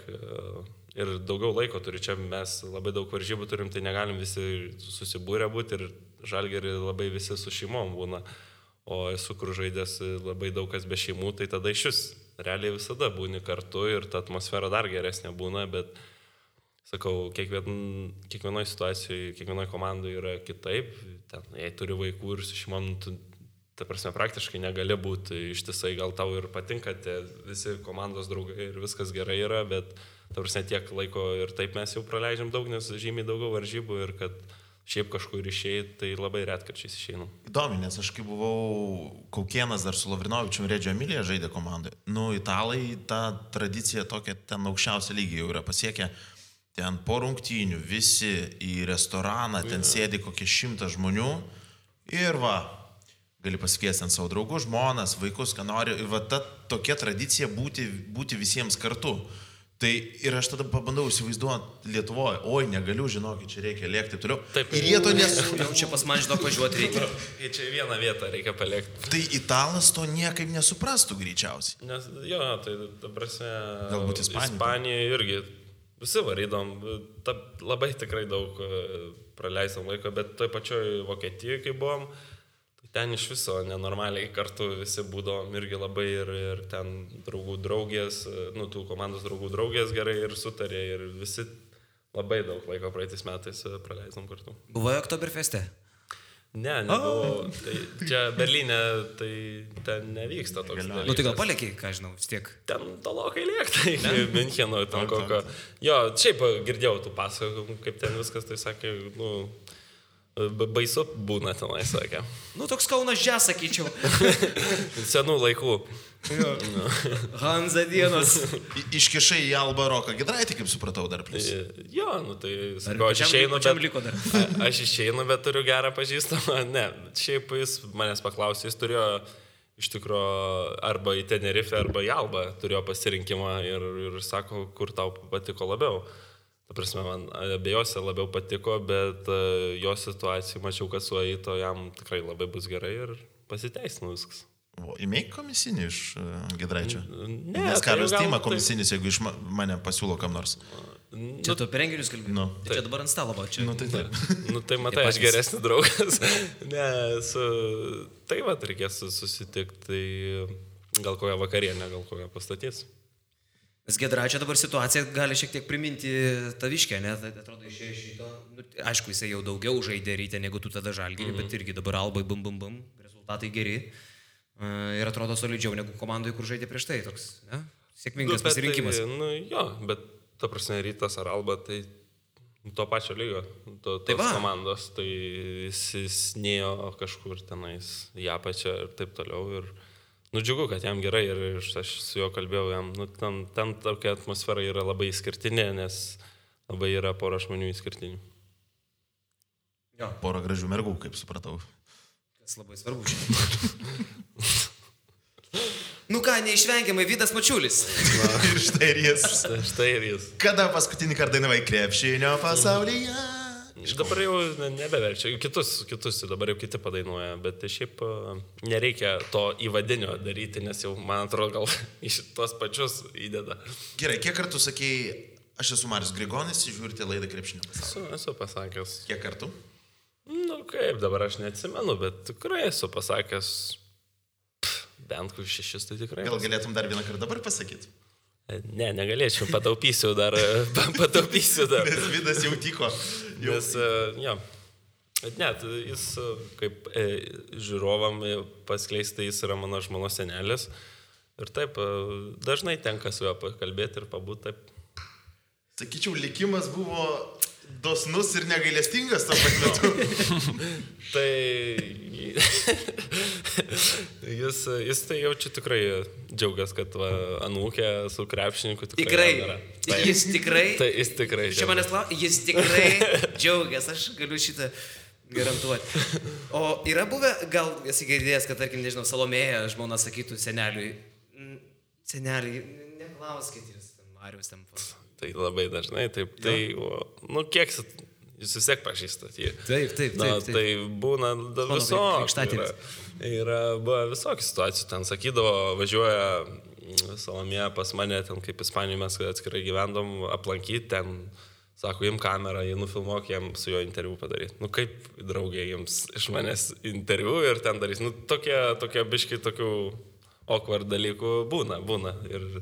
Speaker 3: ir daugiau laiko turi. Čia mes labai daug varžybų turim, tai negalim visi susibūrę būti ir Žalgirį labai visi su šeimom būna. O esu kur žaidęs labai daug kas be šeimų, tai tada iš vis realiai visada būni kartu ir ta atmosfera dar geresnė būna, bet, sakau, kiekvienoje situacijoje, kiekvienoje komandoje yra kitaip. Ten, jei turi vaikų ir su šeimom, ta prasme, praktiškai negali būti ištisai, gal tau ir patinka tie visi komandos draugai ir viskas gerai yra, bet, ta prasme, tiek laiko ir taip mes jau praleidžiam daug, nes žymiai daugiau varžybų ir kad šiaip kažkur išėjai, tai labai retkarčiais išeinam.
Speaker 2: Įdomi, nes aš kai buvau Kaukėnas dar su Lavrinovičium Reggio Emilia žaidė komandai. Italai tą tradiciją tokią ten aukščiausią lygį jau yra pasiekę. Ten po rungtynių visi į restoraną, ten sėdi kokie 100 žmonių ir gali pasikviesti ant savo draugų, žmonas, vaikus, ką nori. Ir ta tokia tradicija būti visiems kartu. Tai ir aš tada pabandau įsivaizduoti Lietuvoje, oi, negaliu, žinokit, čia reikia lėkti, taip toliau.
Speaker 3: Taip.
Speaker 2: Ir jie to
Speaker 1: Jau čia pas man žinok važiuoti reikia.
Speaker 3: Ir čia vieną vietą reikia palikti.
Speaker 2: Tai italas to niekaip nesuprastų greičiausiai.
Speaker 3: Nes, jo, tai ta prasme,
Speaker 2: Galbūt
Speaker 3: Ispanija irgi visi varydom, labai tikrai daug praleisam laiko, bet toj pačioj Vokietijoje, kai buvom, ten iš viso nenormaliai kartu visi būdavom irgi labai ir ten draugų draugės, tų komandos draugų draugės gerai ir sutarė ir visi labai daug laiko praeitais metais praleisam kartu.
Speaker 1: Buvojo Oktoberfeste?
Speaker 3: Ne, nebuvo. Tai čia Berlyne, tai ten nevyksta toks dalykas.
Speaker 1: Nu tai gal paliekiai, ką žinau, vis tiek.
Speaker 3: Ten tolokai liekta iki Mincheno, ten kokio. Jo, šiaip girdėjau tų pasakojimų, kaip ten viskas, tai sakė, baisu būna tenai, sakė.
Speaker 1: Nu, toks Kaunas Jazz, sakyčiau.
Speaker 3: Senų laikų.
Speaker 1: Hanza dienos.
Speaker 2: Iškišai į Alba Roką Giedraitį, kaip supratau, dar plus.
Speaker 3: Jo, tai sakau, aš išeinu, aš išeinu, bet turiu gerą pažįstamą. Ne, šiaip jis manęs paklausė, jis turėjo iš tikrųjų arba į Tenerife, arba į Albą turėjo pasirinkimą ir sako, kur tau patiko labiau. Ta prasme, man abiejose labiau patiko, bet jo situacijai mačiau, kad su Aito jam tikrai labai bus gerai ir pasiteisino viskas.
Speaker 2: Įmėk komisinį iš Giedraičio?
Speaker 3: Ne.
Speaker 2: Nes Karlius Tima komisinis, jeigu iš mane pasiūlo kam nors.
Speaker 1: Čia tu apie renginius kalbėjai?
Speaker 2: Nu.
Speaker 1: Tai čia dabar ant stalo va čia.
Speaker 2: Nu tai taip.
Speaker 3: Nu tai matai, aš geresnis draugas. Ne, tai va, reikės susitikti, tai gal kokią vakarienę, gal kokią pastatys.
Speaker 1: Nes Giedraičio dabar situacija gali šiek tiek priminti Taviškę, ne? Tai atrodo išėjo šito. Aišku, jisai jau daugiau žaidė ryte negu tu tada Žalgirį, bet irgi dabar Albai bum, rezultatai geri. Ir atrodo solidžiau negu komandai, kur žaidė prieš tai. Toks, ne? Sėkmingas pasirinkimas.
Speaker 3: Tai, jo, bet ta prasme Rytas ar Alba, tai to pačio lygio, tos komandos, tai jis nėjo kažkur tenais į apačią ir taip toliau. Ir džiugu, kad jam gerai ir aš su juo kalbėjau, jam, ten tokia atmosfera yra labai išskirtinė, nes labai yra pora žmonių išskirtinių.
Speaker 2: Jo. Pora gražių mergų, kaip supratau.
Speaker 1: Kas labai svarbu čia. Nu ką, neišvengiamai Vydas Mačiulis.
Speaker 2: Ir štai ir jis.
Speaker 3: Štai ir jis.
Speaker 2: Kada paskutinį kartą dainavai krepšinio pasaulyje?
Speaker 3: Dabar jau nebeverčia, kitus dabar jau kiti padainuoja, bet šiaip nereikia to įvadinio daryti, nes jau, man atrodo, gal iš tos pačius įdeda.
Speaker 2: Gerai, kiek kartų sakėjai, aš esu Marius Grigonis, žiūrite laidą krepšinio pasaulyje?
Speaker 3: Esu pasakęs.
Speaker 2: Kiek kartų?
Speaker 3: Nu kaip, dabar aš neatsimenu, bet tikrai esu pasakęs bent 6, tai tikrai.
Speaker 2: Gal galėtum dar vieną kartą dabar pasakyti?
Speaker 3: Ne, negalėčiau, pataupysiu dar.
Speaker 2: Nes Vydas jau tiko.
Speaker 3: Nes, jo. Bet net, jis kaip žiūrovam paskleisti, jis yra mano žmonos senelis. Ir taip, dažnai tenka su juo pakalbėti ir pabūti taip.
Speaker 2: Sakyčiau, likimas buvo dosnus ir negailestingas to pat metu.
Speaker 3: Tai jis tai jaučiu tikrai džiaugias, kad anūkė su krepšininku
Speaker 1: tikrai. Jis tikrai.
Speaker 3: Tai jis tikrai.
Speaker 1: Čia manęs klausia, jis tikrai džiaugias, aš galiu šitą garantuoti. O yra buvę, gal esi girdėjęs, kad, tarkim, nežinau, Salomėja žmona sakytų seneliui, seneliui, neklauskit jūs, Marius ten.
Speaker 3: Tai labai dažnai, taip, tai, kiek jūs vis tiek pažįstat jį.
Speaker 1: Taip.
Speaker 3: Tai būna visokių. Yra visokių situacijų, ten sakydavo, važiuoja Salomėja pas mane, ten kaip Ispanijoje mes atskirai gyvendom, aplankyti, ten, sako, im kamerą, jį nufilmuok, jam su jo interviu padaryti. Nu kaip draugė jums iš manęs interviu ir ten darys. Nu tokie biški tokių awkward dalykų būna. Ir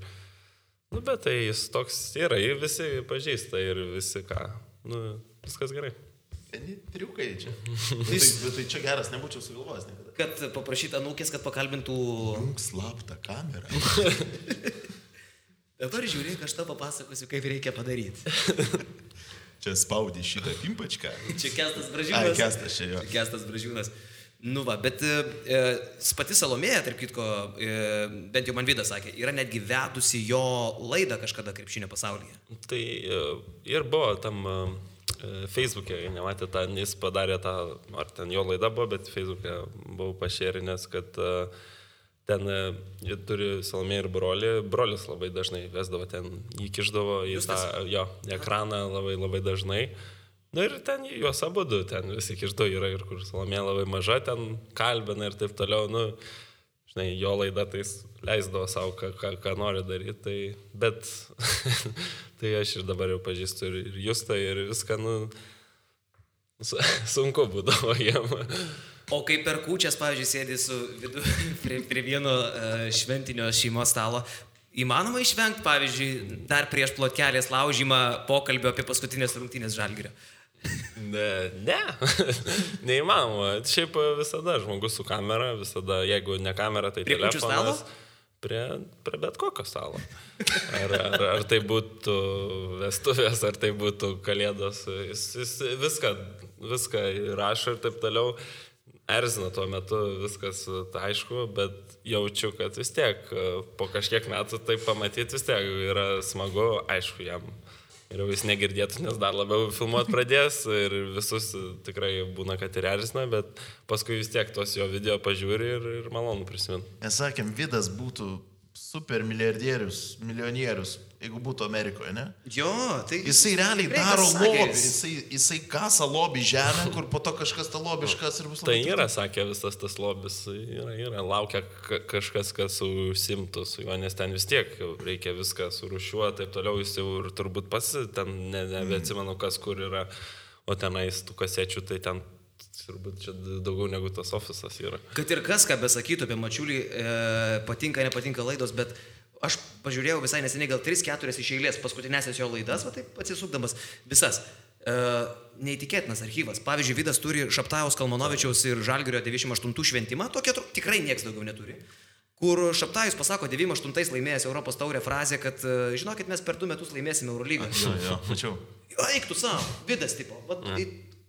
Speaker 3: bet tai jis toks yra, jį visi pažįsta ir visi ką, viskas gerai.
Speaker 2: Triukai čia. Bet tai čia geras, nebūčiau sugalvojęs niekada.
Speaker 1: Kad paprašyt anūkės, kad pakalbintų...
Speaker 2: Slaptą kamerą.
Speaker 1: Dabar žiūrėk, aš tau papasakosiu, kaip reikia padaryti.
Speaker 2: Čia spaudė šitą pimpačką.
Speaker 1: Čia Kestas Bražiūnas.
Speaker 2: Ai, Kestas čia jo.
Speaker 1: Čia Kestas Bražiūnas. Nu va, bet pati Salomėja, tarp kitko, bent jau man Vydas sakė, yra netgi vedusi jo laidą kažkada krepšinio pasaulyje.
Speaker 3: Tai ir buvo tam Facebook'e, nematė tą, jis padarė tą, ar ten jo laida buvo, bet Facebook'e buvau pašėrinęs, kad ten jie turi Salomė ir brolį. Brolis labai dažnai vesdavo ten, jį kišdavo į tą ekraną labai dažnai. Na ir ten juos abudu, ten visi kišdo yra ir kur Salomė labai maža, ten kalbina ir taip toliau, nu, žinai, jo laida tai leisdavo savo, ką nori daryti, tai, bet tai aš ir dabar jau pažįstu ir Justą ir viską, nu, sunku būdavo jiem.
Speaker 1: O kai per kūčias, pavyzdžiui, sėdi su prie vieno šventinio šeimos stalo, įmanoma išvengti, pavyzdžiui, dar prieš plotkelės laužymą pokalbio apie paskutinės rungtynės Žalgirio?
Speaker 3: Ne, neįmanoma. Šiaip visada žmogus su kamera, visada, jeigu ne kamera, tai
Speaker 1: prie
Speaker 3: telefonas. Prie bet kokio stalo. Ar tai būtų vestuvės, ar tai būtų kalėdos. Jis viską rašo ir taip toliau. Erzina tuo metu, viskas aišku, bet jaučiu, kad vis tiek po kažkiek metų tai pamatyti vis tiek yra smagu, aišku, jam. Ir jis negirdėtų, nes dar labiau filmuot pradės ir visus tikrai būna, kad ir erzina, bet paskui vis tiek tos jo video pažiūri ir malonu prisiminti.
Speaker 2: Mes sakėm, Vidas būtų super milijardierius, milijonierius, jeigu būtų Amerikoje, ne?
Speaker 1: Jo, tai...
Speaker 2: Jisai realiai daro lobį, jisai kasa lobį žemę, kur po to kažkas tą lobį iškas ir bus labai...
Speaker 3: Tai yra, sakė, visas tas lobis, yra, laukia kažkas, kas užsimtų su juo, nes ten vis tiek reikia viską surūšiuoti, taip toliau jis jau ir turbūt pats, ten nebeatsimenu, kas kur yra, o tenais tų kasečių, tai ten turbūt čia daugiau negu tas ofisas yra.
Speaker 1: Kad ir kas, ką besakytų apie Mačiulį, patinka, nepatinka laidos, bet aš pažiūrėjau visai neseniai gal 3-4 iš eilės paskutinėsias jo laidas, va taip atsisukdamas visas. Neįtikėtinas archyvas. Pavyzdžiui, Vidas turi Šaptajaus, Kalmanovičiaus ir Žalgirio 98 šventimą, tokia tikrai nieks daugiau neturi. Kur Šaptajus pasako 98 laimėjęs Europos taurę frazę, kad žinokit, mes per 2 metus laimėsime Eurolygą.
Speaker 2: Jo, mačiau.
Speaker 1: Eik tu savo, Vidas tipo.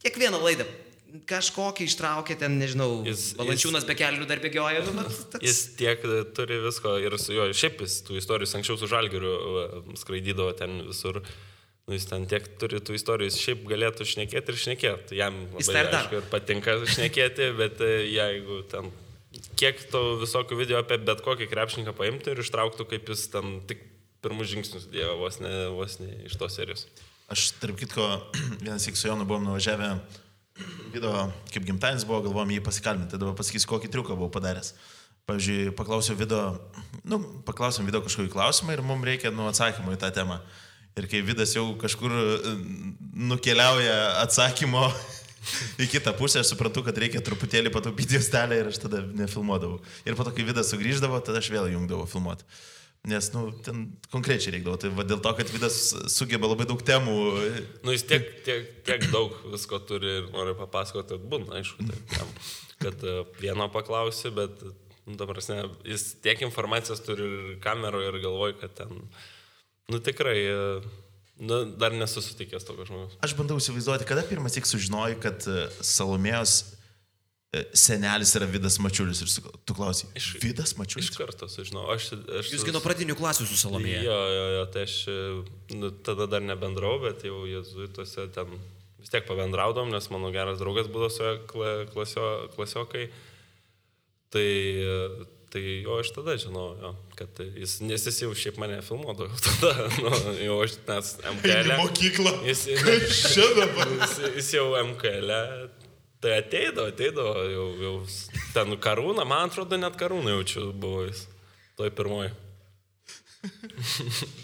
Speaker 1: Kiekvieną laidą kažkokį ištraukė ten, nežinau, Valančiūnas be kelnių dar bėgioja.
Speaker 3: Jis tiek turi visko ir su juo, šiaip jis tų istorijų, anksčiau su Žalgiriu skraidydavo ten visur. Nu, jis ten tiek turi tų istorijų, jis šiaip galėtų šnekėti ir šnekėti. Jam labai aišku ir patinka šnekėti, bet jeigu ten kiek to visokių video apie bet kokį krepšininką paimtų ir ištrauktų, kaip jis ten tik pirmus žingsnius dėjo vos ne iš tos serijos. Aš,
Speaker 2: tarp kitko, vienas iki su Jonu buvom nuvažiavę video, kaip gimtadienis buvo, galvojom jį pasikalbinti, dabar pasakysiu, kokį triuką buvau padaręs. Pavyzdžiui, paklausiau video kažkokį klausimą ir mums reikia atsakymų į tą temą. Ir kai Vidas jau kažkur nukeliauja atsakymo į kitą pusę, aš suprantu, kad reikia truputėlį pataupyti juostelę ir aš tada nefilmuodavau. Ir po to, kai Vidas sugrįždavo, tada aš vėl jungdavau filmuoti. Nes, ten konkrečiai reikdavo. Tai dėl to, kad Vidas sugeba labai daug temų.
Speaker 3: Jis tiek daug visko turi ir nori papasakoti, kad būna, aišku, kad vieno paklausi, bet, dabar, jis tiek informacijos turi ir kameroje ir galvoja, kad ten, tikrai, dar nesusitikęs tokio žmogaus.
Speaker 2: Aš bandau įsivaizduoti, kada pirmas tik sužinojai, kad Salomėjos senelis yra Vidas Mačiulis ir tu klausai, Vidas Mačiulis?
Speaker 3: Iš karto sužinau.
Speaker 1: Jūs nuo pradinių klasių su Salomėja?
Speaker 3: Jo, tai aš tada dar nebendrau, bet jau jėzuituose ten vis tiek pabendraudom, nes mano geras draugas būdavo su klasiokai. Tai jo, aš tada žinau, kad nes jis jau šiaip mane filmuodavo tada, jau aš nes MKL.
Speaker 2: Mokyklą.
Speaker 3: Jis jau MKL. Tai ateidavo, jau ten Karūną, man atrodo, net Karūną jaučiu buvo jis, toj pirmoji.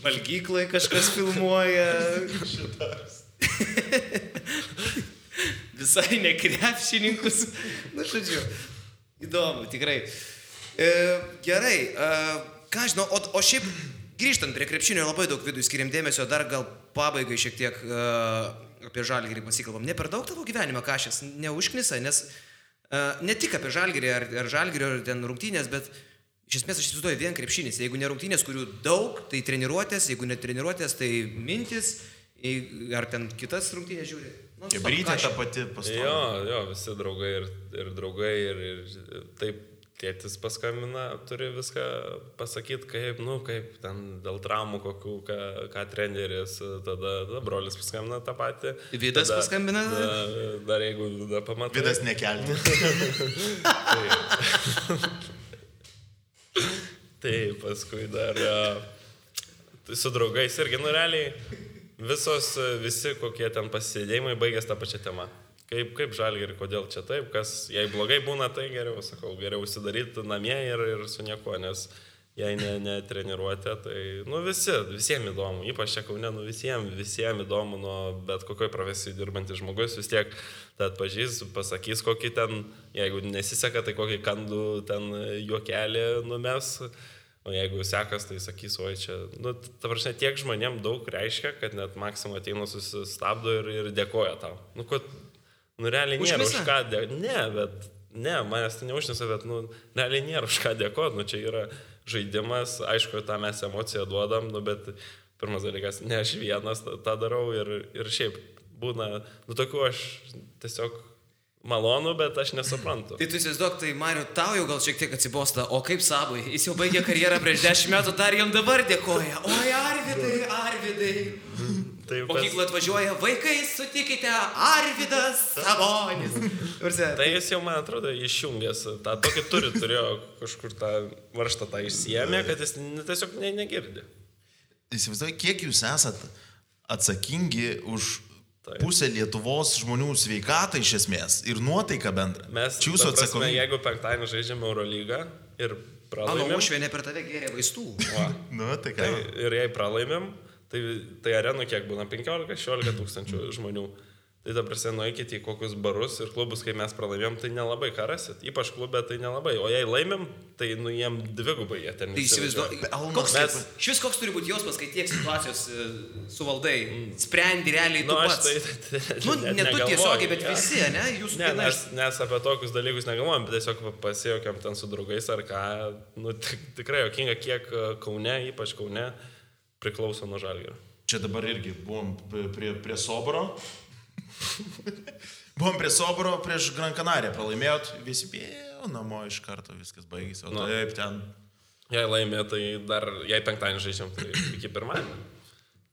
Speaker 1: Valgyklai kažkas filmuoja. Visai ne krepšininkus. Žodžiu, įdomu, tikrai. Gerai, ką žinau, o šiaip grįžtant prie krepšinio labai daug Vidui skiriam dėmesio, dar gal pabaigai šiek tiek apie Žalgirį pasikalbam. Ne per daug tavo gyvenime kažkas neužknisa, nes ne tik apie Žalgirį ar Žalgirio ten rungtynės, bet iš esmės aš įsivaizduoju vien krepšinis. Jeigu ne rungtynės, kurių daug, tai treniruotės, jeigu ne treniruotės, tai mintis, ar ten kitas rungtynės žiūri.
Speaker 2: Brytė ta pati pastovi.
Speaker 3: Jo, visi draugai ir draugai ir taip. Tėtis paskambina, turi viską pasakyti, kaip ten dėl traumų kokių, ką treneris, tada brolis paskambina tą patį.
Speaker 1: Vidas paskambina?
Speaker 3: Dar jeigu Vida pamatai.
Speaker 2: Vidas nekelti.
Speaker 3: Tai paskui dar su draugais irgi, nu realiai, visi kokie ten pasisėdėjimai baigės tą pačią temą. Kaip Žalgirį, kodėl čia taip, kas, jei blogai būna, tai geriau, sakau, geriau užsidaryti namie ir su nieko, nes jei netreniruotė, tai, nu visiems įdomu, ypač čia Kaune, nu visiems įdomu, nuo bet kokioj profesijai dirbantis žmogus, vis tiek tą atpažys, pasakys kokį ten, jeigu nesiseka, tai kokį kandų ten juokelį numes. O jeigu sekas, tai sakys, oi čia, nu, ta prasme, tiek žmonėm daug reiškia, kad net Maksimo ateina susistabdo ir dėkoja tau. Nu, realiai nėra už ką dėkoti. Ne, manęs tai neužnisa, bet, nu, realiai nėra už ką dėkoti. Nu, čia yra žaidimas, aišku, tą mes emociją duodam, nu, bet pirmas dalykas, ne aš vienas tą darau ir šiaip būna, nu, tokių aš tiesiog malonu, bet aš nesuprantu.
Speaker 1: Tai tu įsivaizduok, tai Mariu, tau jau gal šiek tiek atsibosta, o kaip Sabui, jis jau baigė karjerą prieš 10 metų, dar jam dabar dėkoja. Oi, Arvidai. Mokyklą atvažiuoja, vaikai, sutikite, Arvidas Sabonis.
Speaker 3: Tai jis jau, man atrodo, išjungęs tą tokį turėjo kažkur tą varžtą tą išsiėmė, kad jis tiesiog negirdi.
Speaker 2: Įsivaizduoju, kiek jūs esat atsakingi už pusę Lietuvos žmonių sveikatą iš esmės ir nuotaiką bendrą.
Speaker 3: Mes, prasme, jeigu penktadienį žaidžiame Eurolygą ir pralaimėm...
Speaker 1: Uošvienė per tave gėrė vaistų.
Speaker 2: Nu, tai ką?
Speaker 3: Ir jei pralaimėm, tai arenų kiek būna 15-16 tūkstančių žmonių. Tai dabar nueikite į kokius barus ir klubus, kai mes pralaimėm, tai nelabai ką rasit. Ypač klube tai nelabai. O jei laimėm, tai jiem dvigubai jie ten.
Speaker 1: Tai įsivaizduoju. Koks turi būti jausmas, kai tiek situacijos suvaldai, sprendi realiai tu pats. Ne tu tiesiogiai, bet visi, ne?
Speaker 3: Nes apie tokius dalykus negalvojam, bet tiesiog pasijokiam ten su draugais ar ką. Nu, tikrai jokinga, kiek Kaune, ypač Kaune, priklauso nuo Žalgirio.
Speaker 2: Čia dabar irgi buvom prie Soboro. Buvom prie Soboro, prieš Gran Canariją pralaimėjot, visi bėjo namo iš karto, viskas baigėsi, o taip ten.
Speaker 3: Jei laimė, tai dar, jei penktadienį žaidžiam, tai iki pirmadienio.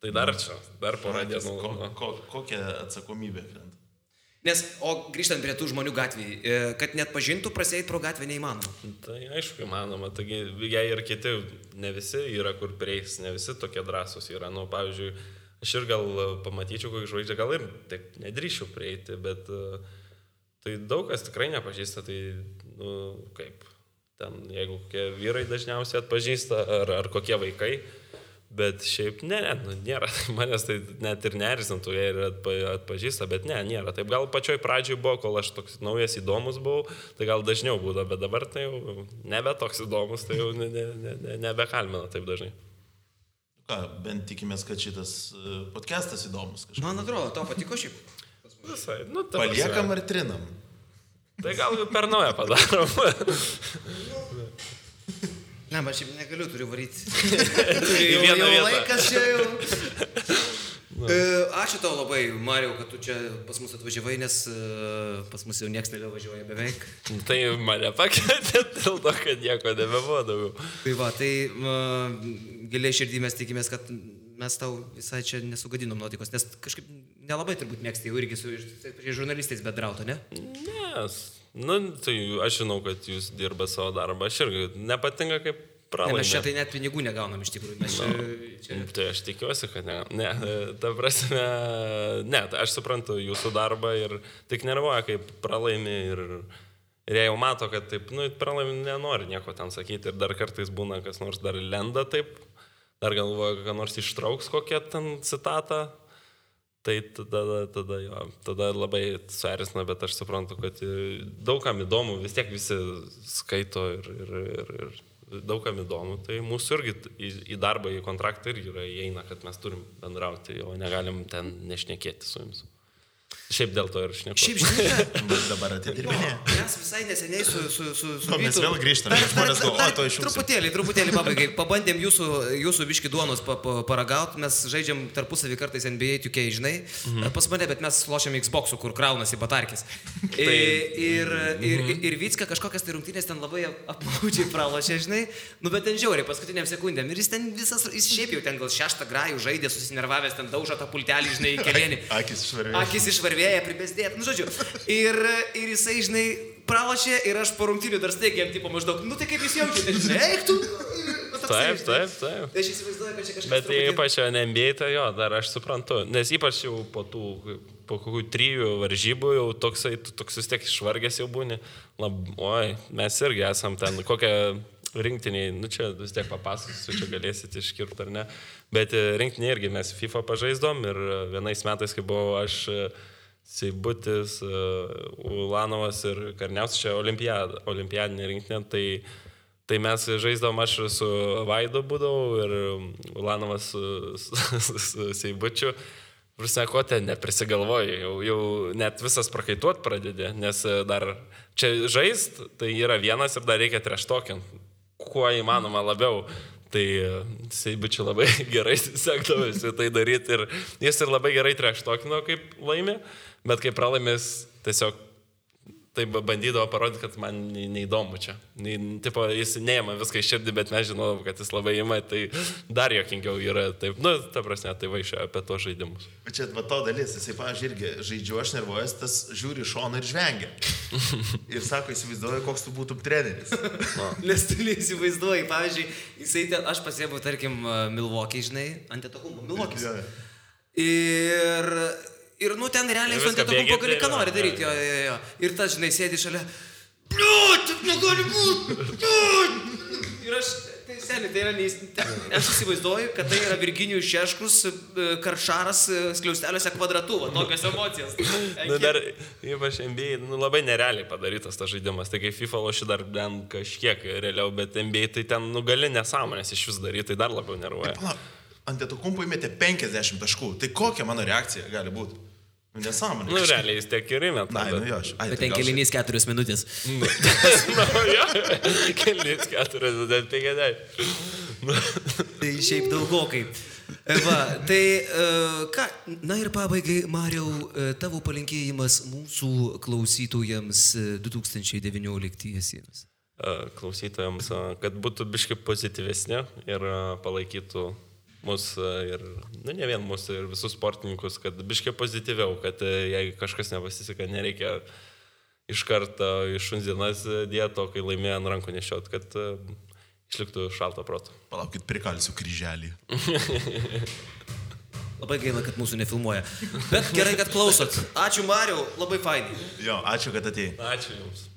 Speaker 3: Tai dar čia, dar porą dienų.
Speaker 2: Kokia atsakomybė krenta?
Speaker 1: Nes, o grįžtant prie tų žmonių gatvėje, kad net pažintų, praseit pro gatvę neįmanoma.
Speaker 3: Tai aišku įmanoma, taigi jei ir kiti, ne visi yra kur prieis, ne visi tokie drąsūs yra, nu, pavyzdžiui, aš ir gal pamatyčiau, kokį žvaigždė, gal ir taip nedrįšiu prieiti, bet tai daug kas tikrai nepažįsta, tai, nu, kaip, ten, jeigu kokie vyrai dažniausiai atpažįsta, ar kokie vaikai, bet šiaip, nėra, manęs tai net ir neerzintų, jie ir atpažįsta, bet nėra, taip gal pačioj pradžioj buvo, kol aš toks naujas įdomus buvau, tai gal dažniau būdavo, bet dabar tai jau nebe toks įdomus, tai jau nebekalmina taip dažnai.
Speaker 2: Ką, bent tikimės, kad šitas podcastas įdomus kažkaip.
Speaker 1: Man atrodo, tau patiko šiaip.
Speaker 3: Visai,
Speaker 2: paliekam ar trinam?
Speaker 3: Tai gal per naują padarom.
Speaker 1: Ne, bet šiaip negaliu, turiu varyti. Jau laikas čia jau. Ačiū tau labai, Mariau, kad tu čia pas mus atvažiavai, nes pas mus jau nieks nebevažiuoja beveik.
Speaker 3: Tai mane pakvietė dėl to, kad nieko nebebuvo daugiau.
Speaker 1: Tai va, tai giliai širdį mes tikimės, kad mes tau visai čia nesugadinom nuotaikos, nes kažkaip nelabai turbūt mėgsti jau irgi su žurnalistais bendrauti, ne?
Speaker 3: Ne, tai aš žinau, kad jūs dirba savo darbą, aš irgi nepatinka kaip pralaimė.
Speaker 1: Mes čia tai net pinigų negaunam iš tikrųjų.
Speaker 3: Tai aš tikiuosi, kad ne. Ta prasme, tai aš suprantu jūsų darbą ir tik nervuoja, kaip pralaimė ir jie jau mato, kad taip, pralaimė nenori nieko ten sakyti ir dar kartais būna, kas nors dar lenda taip, dar galvoja, kad nors ištrauks kokią ten citatą. Tai tada labai suerzina, bet aš suprantu, kad daugam įdomu, vis tiek visi skaito ir daugam įdomu, tai mūsų irgi į darbą, į kontraktą irgi įeina, kad mes turim bendrauti, o negalim ten nešnekėti su jums. Šiaip dėl to ir šneku.
Speaker 1: Šiaip žinai,
Speaker 2: dabar atidirbinė.
Speaker 1: Mes visai neseniai su
Speaker 2: mes vėl grįžtame, žmonės galvoja, to išjungsiu.
Speaker 1: Truputėlį pabaigai. Pabandėm jūsų biškį duonos paragauti, mes žaidžiam tarpusavį kartais NBA 2K, žinai, pas mane, bet mes lošiam Xbox'u, kur kraunasi batarkis. Ir Vycka kažkokias tai rungtynės ten labai apmaudžiai pralošė, žinai, bet ten žiauriai paskutiniam sekundėm. Ir jis šiaip jau ten gal 6 grajų žaidė, susinervavęs, ten daužo tą pultelį, žinai, į kelėnį. Akis išvarvėja, pribesdėt, žodžiu. Ir jisai, žinai, pralošė ir aš po rungtynių dar staigiai jam tipo maždaug, tai kaip jūs jaučiate, žinai, eik tu.
Speaker 3: Taip.
Speaker 1: Tai aš įsivaizduoju, kad čia kažkas...
Speaker 3: Bet ypač NBA, tai jo, dar aš suprantu, nes ypač jau po kokių 3 varžybų jau toks vis tiek išvargęs jau būni. Oi, mes irgi esam ten kokią rinktiniai, čia vis tiek papasakosiu, čia galėsit iškirpti ar ne, bet rinktiniai irgi mes FIFA pažaisdom ir vienais metais, kai buvau aš Seibutis, Ulanovas ir Karniauskas, čia olimpiadinė rinktinė, tai mes žaisdavom, aš su Vaidu būdavau ir Ulanovas su Seibučiu. Prasme, ko ten neprisigalvoju, jau net visas prakaituot pradedė, nes dar čia žaist, tai yra vienas ir dar reikia treštokint, kuo įmanoma labiau. Tai Seibučiu labai gerai sekdavosi tai daryti ir jis ir labai gerai treštokino, kaip laimė, bet kai pralaimės tiesiog tai bandydavo parodyti, kad man neįdomu čia. Tipo, jis neima viską iš širdį, bet mes žinodom, kad jis labai ima, tai dar jokingiau yra. Taip, ta prasme, tai vaišia apie tos žaidimus.
Speaker 2: Čia va to dalis, jisai, pavyzdžiui, irgi žaidžiu, aš nervuojas, tas žiūri šoną ir žvengia. Ir sako, įsivaizduoju, koks tu būtum treneris.
Speaker 1: Nes tu neįsivaizduoji, pavyzdžiui, jisai ten, aš pasėbau, tarkim, Milwaukee, žinai, Antetokounmpo, Milwaukee. Ir, ten realiai su Antetokounmpo gali ką nori daryti, jo. Ir tas, žinai, sėdi šalia, taip negali būti, Ir aš, tai seniai, tai yra, aš įsivaizduoju, kad tai yra Virginijus Šeškus, Karšaras, skliausteliuose kvadratu, tokios emocijos.
Speaker 3: Dar, ypač NBA, labai nerealiai padarytas tas žaidimas, tai kai FIFA loši dar ten kažkiek realiau, bet NBA tai ten, gali nesąmonės iš vis daryti, tai dar labiau nervuoja.
Speaker 2: Antetokounmpo įmetė 50 taškų, tai kokia mano reakcija gali būti? Nesąmonė.
Speaker 3: Realiai jis tiek ir įmeta.
Speaker 1: Bet ten kelinys 4 minutės.
Speaker 3: Kelinys 4 minutės, 50.
Speaker 1: Tai šiaip daugokai. Va, tai ką, na ir pabaigai, Mariau, tavo palinkėjimas mūsų klausytojams 2019-iesiems.
Speaker 3: Klausytojams, kad būtų biškai pozityvesnė ir palaikytų mus ir, ne vien mus, ir visus sportininkus, kad biškai pozityviau, kad jei kažkas nepasiseka, nereikia iš karto iš šuns dienas dieto, kai laimėjo ant rankų nešiot, kad išliktų šalto proto.
Speaker 2: Palaukit, prikalsiu kryželį.
Speaker 1: Labai gaila, kad mūsų nefilmuoja. Bet gerai, kad klausot. Ačiū, Mariau, labai fainai.
Speaker 2: Jo, ačiū, kad atėjai.
Speaker 3: Ačiū Jums.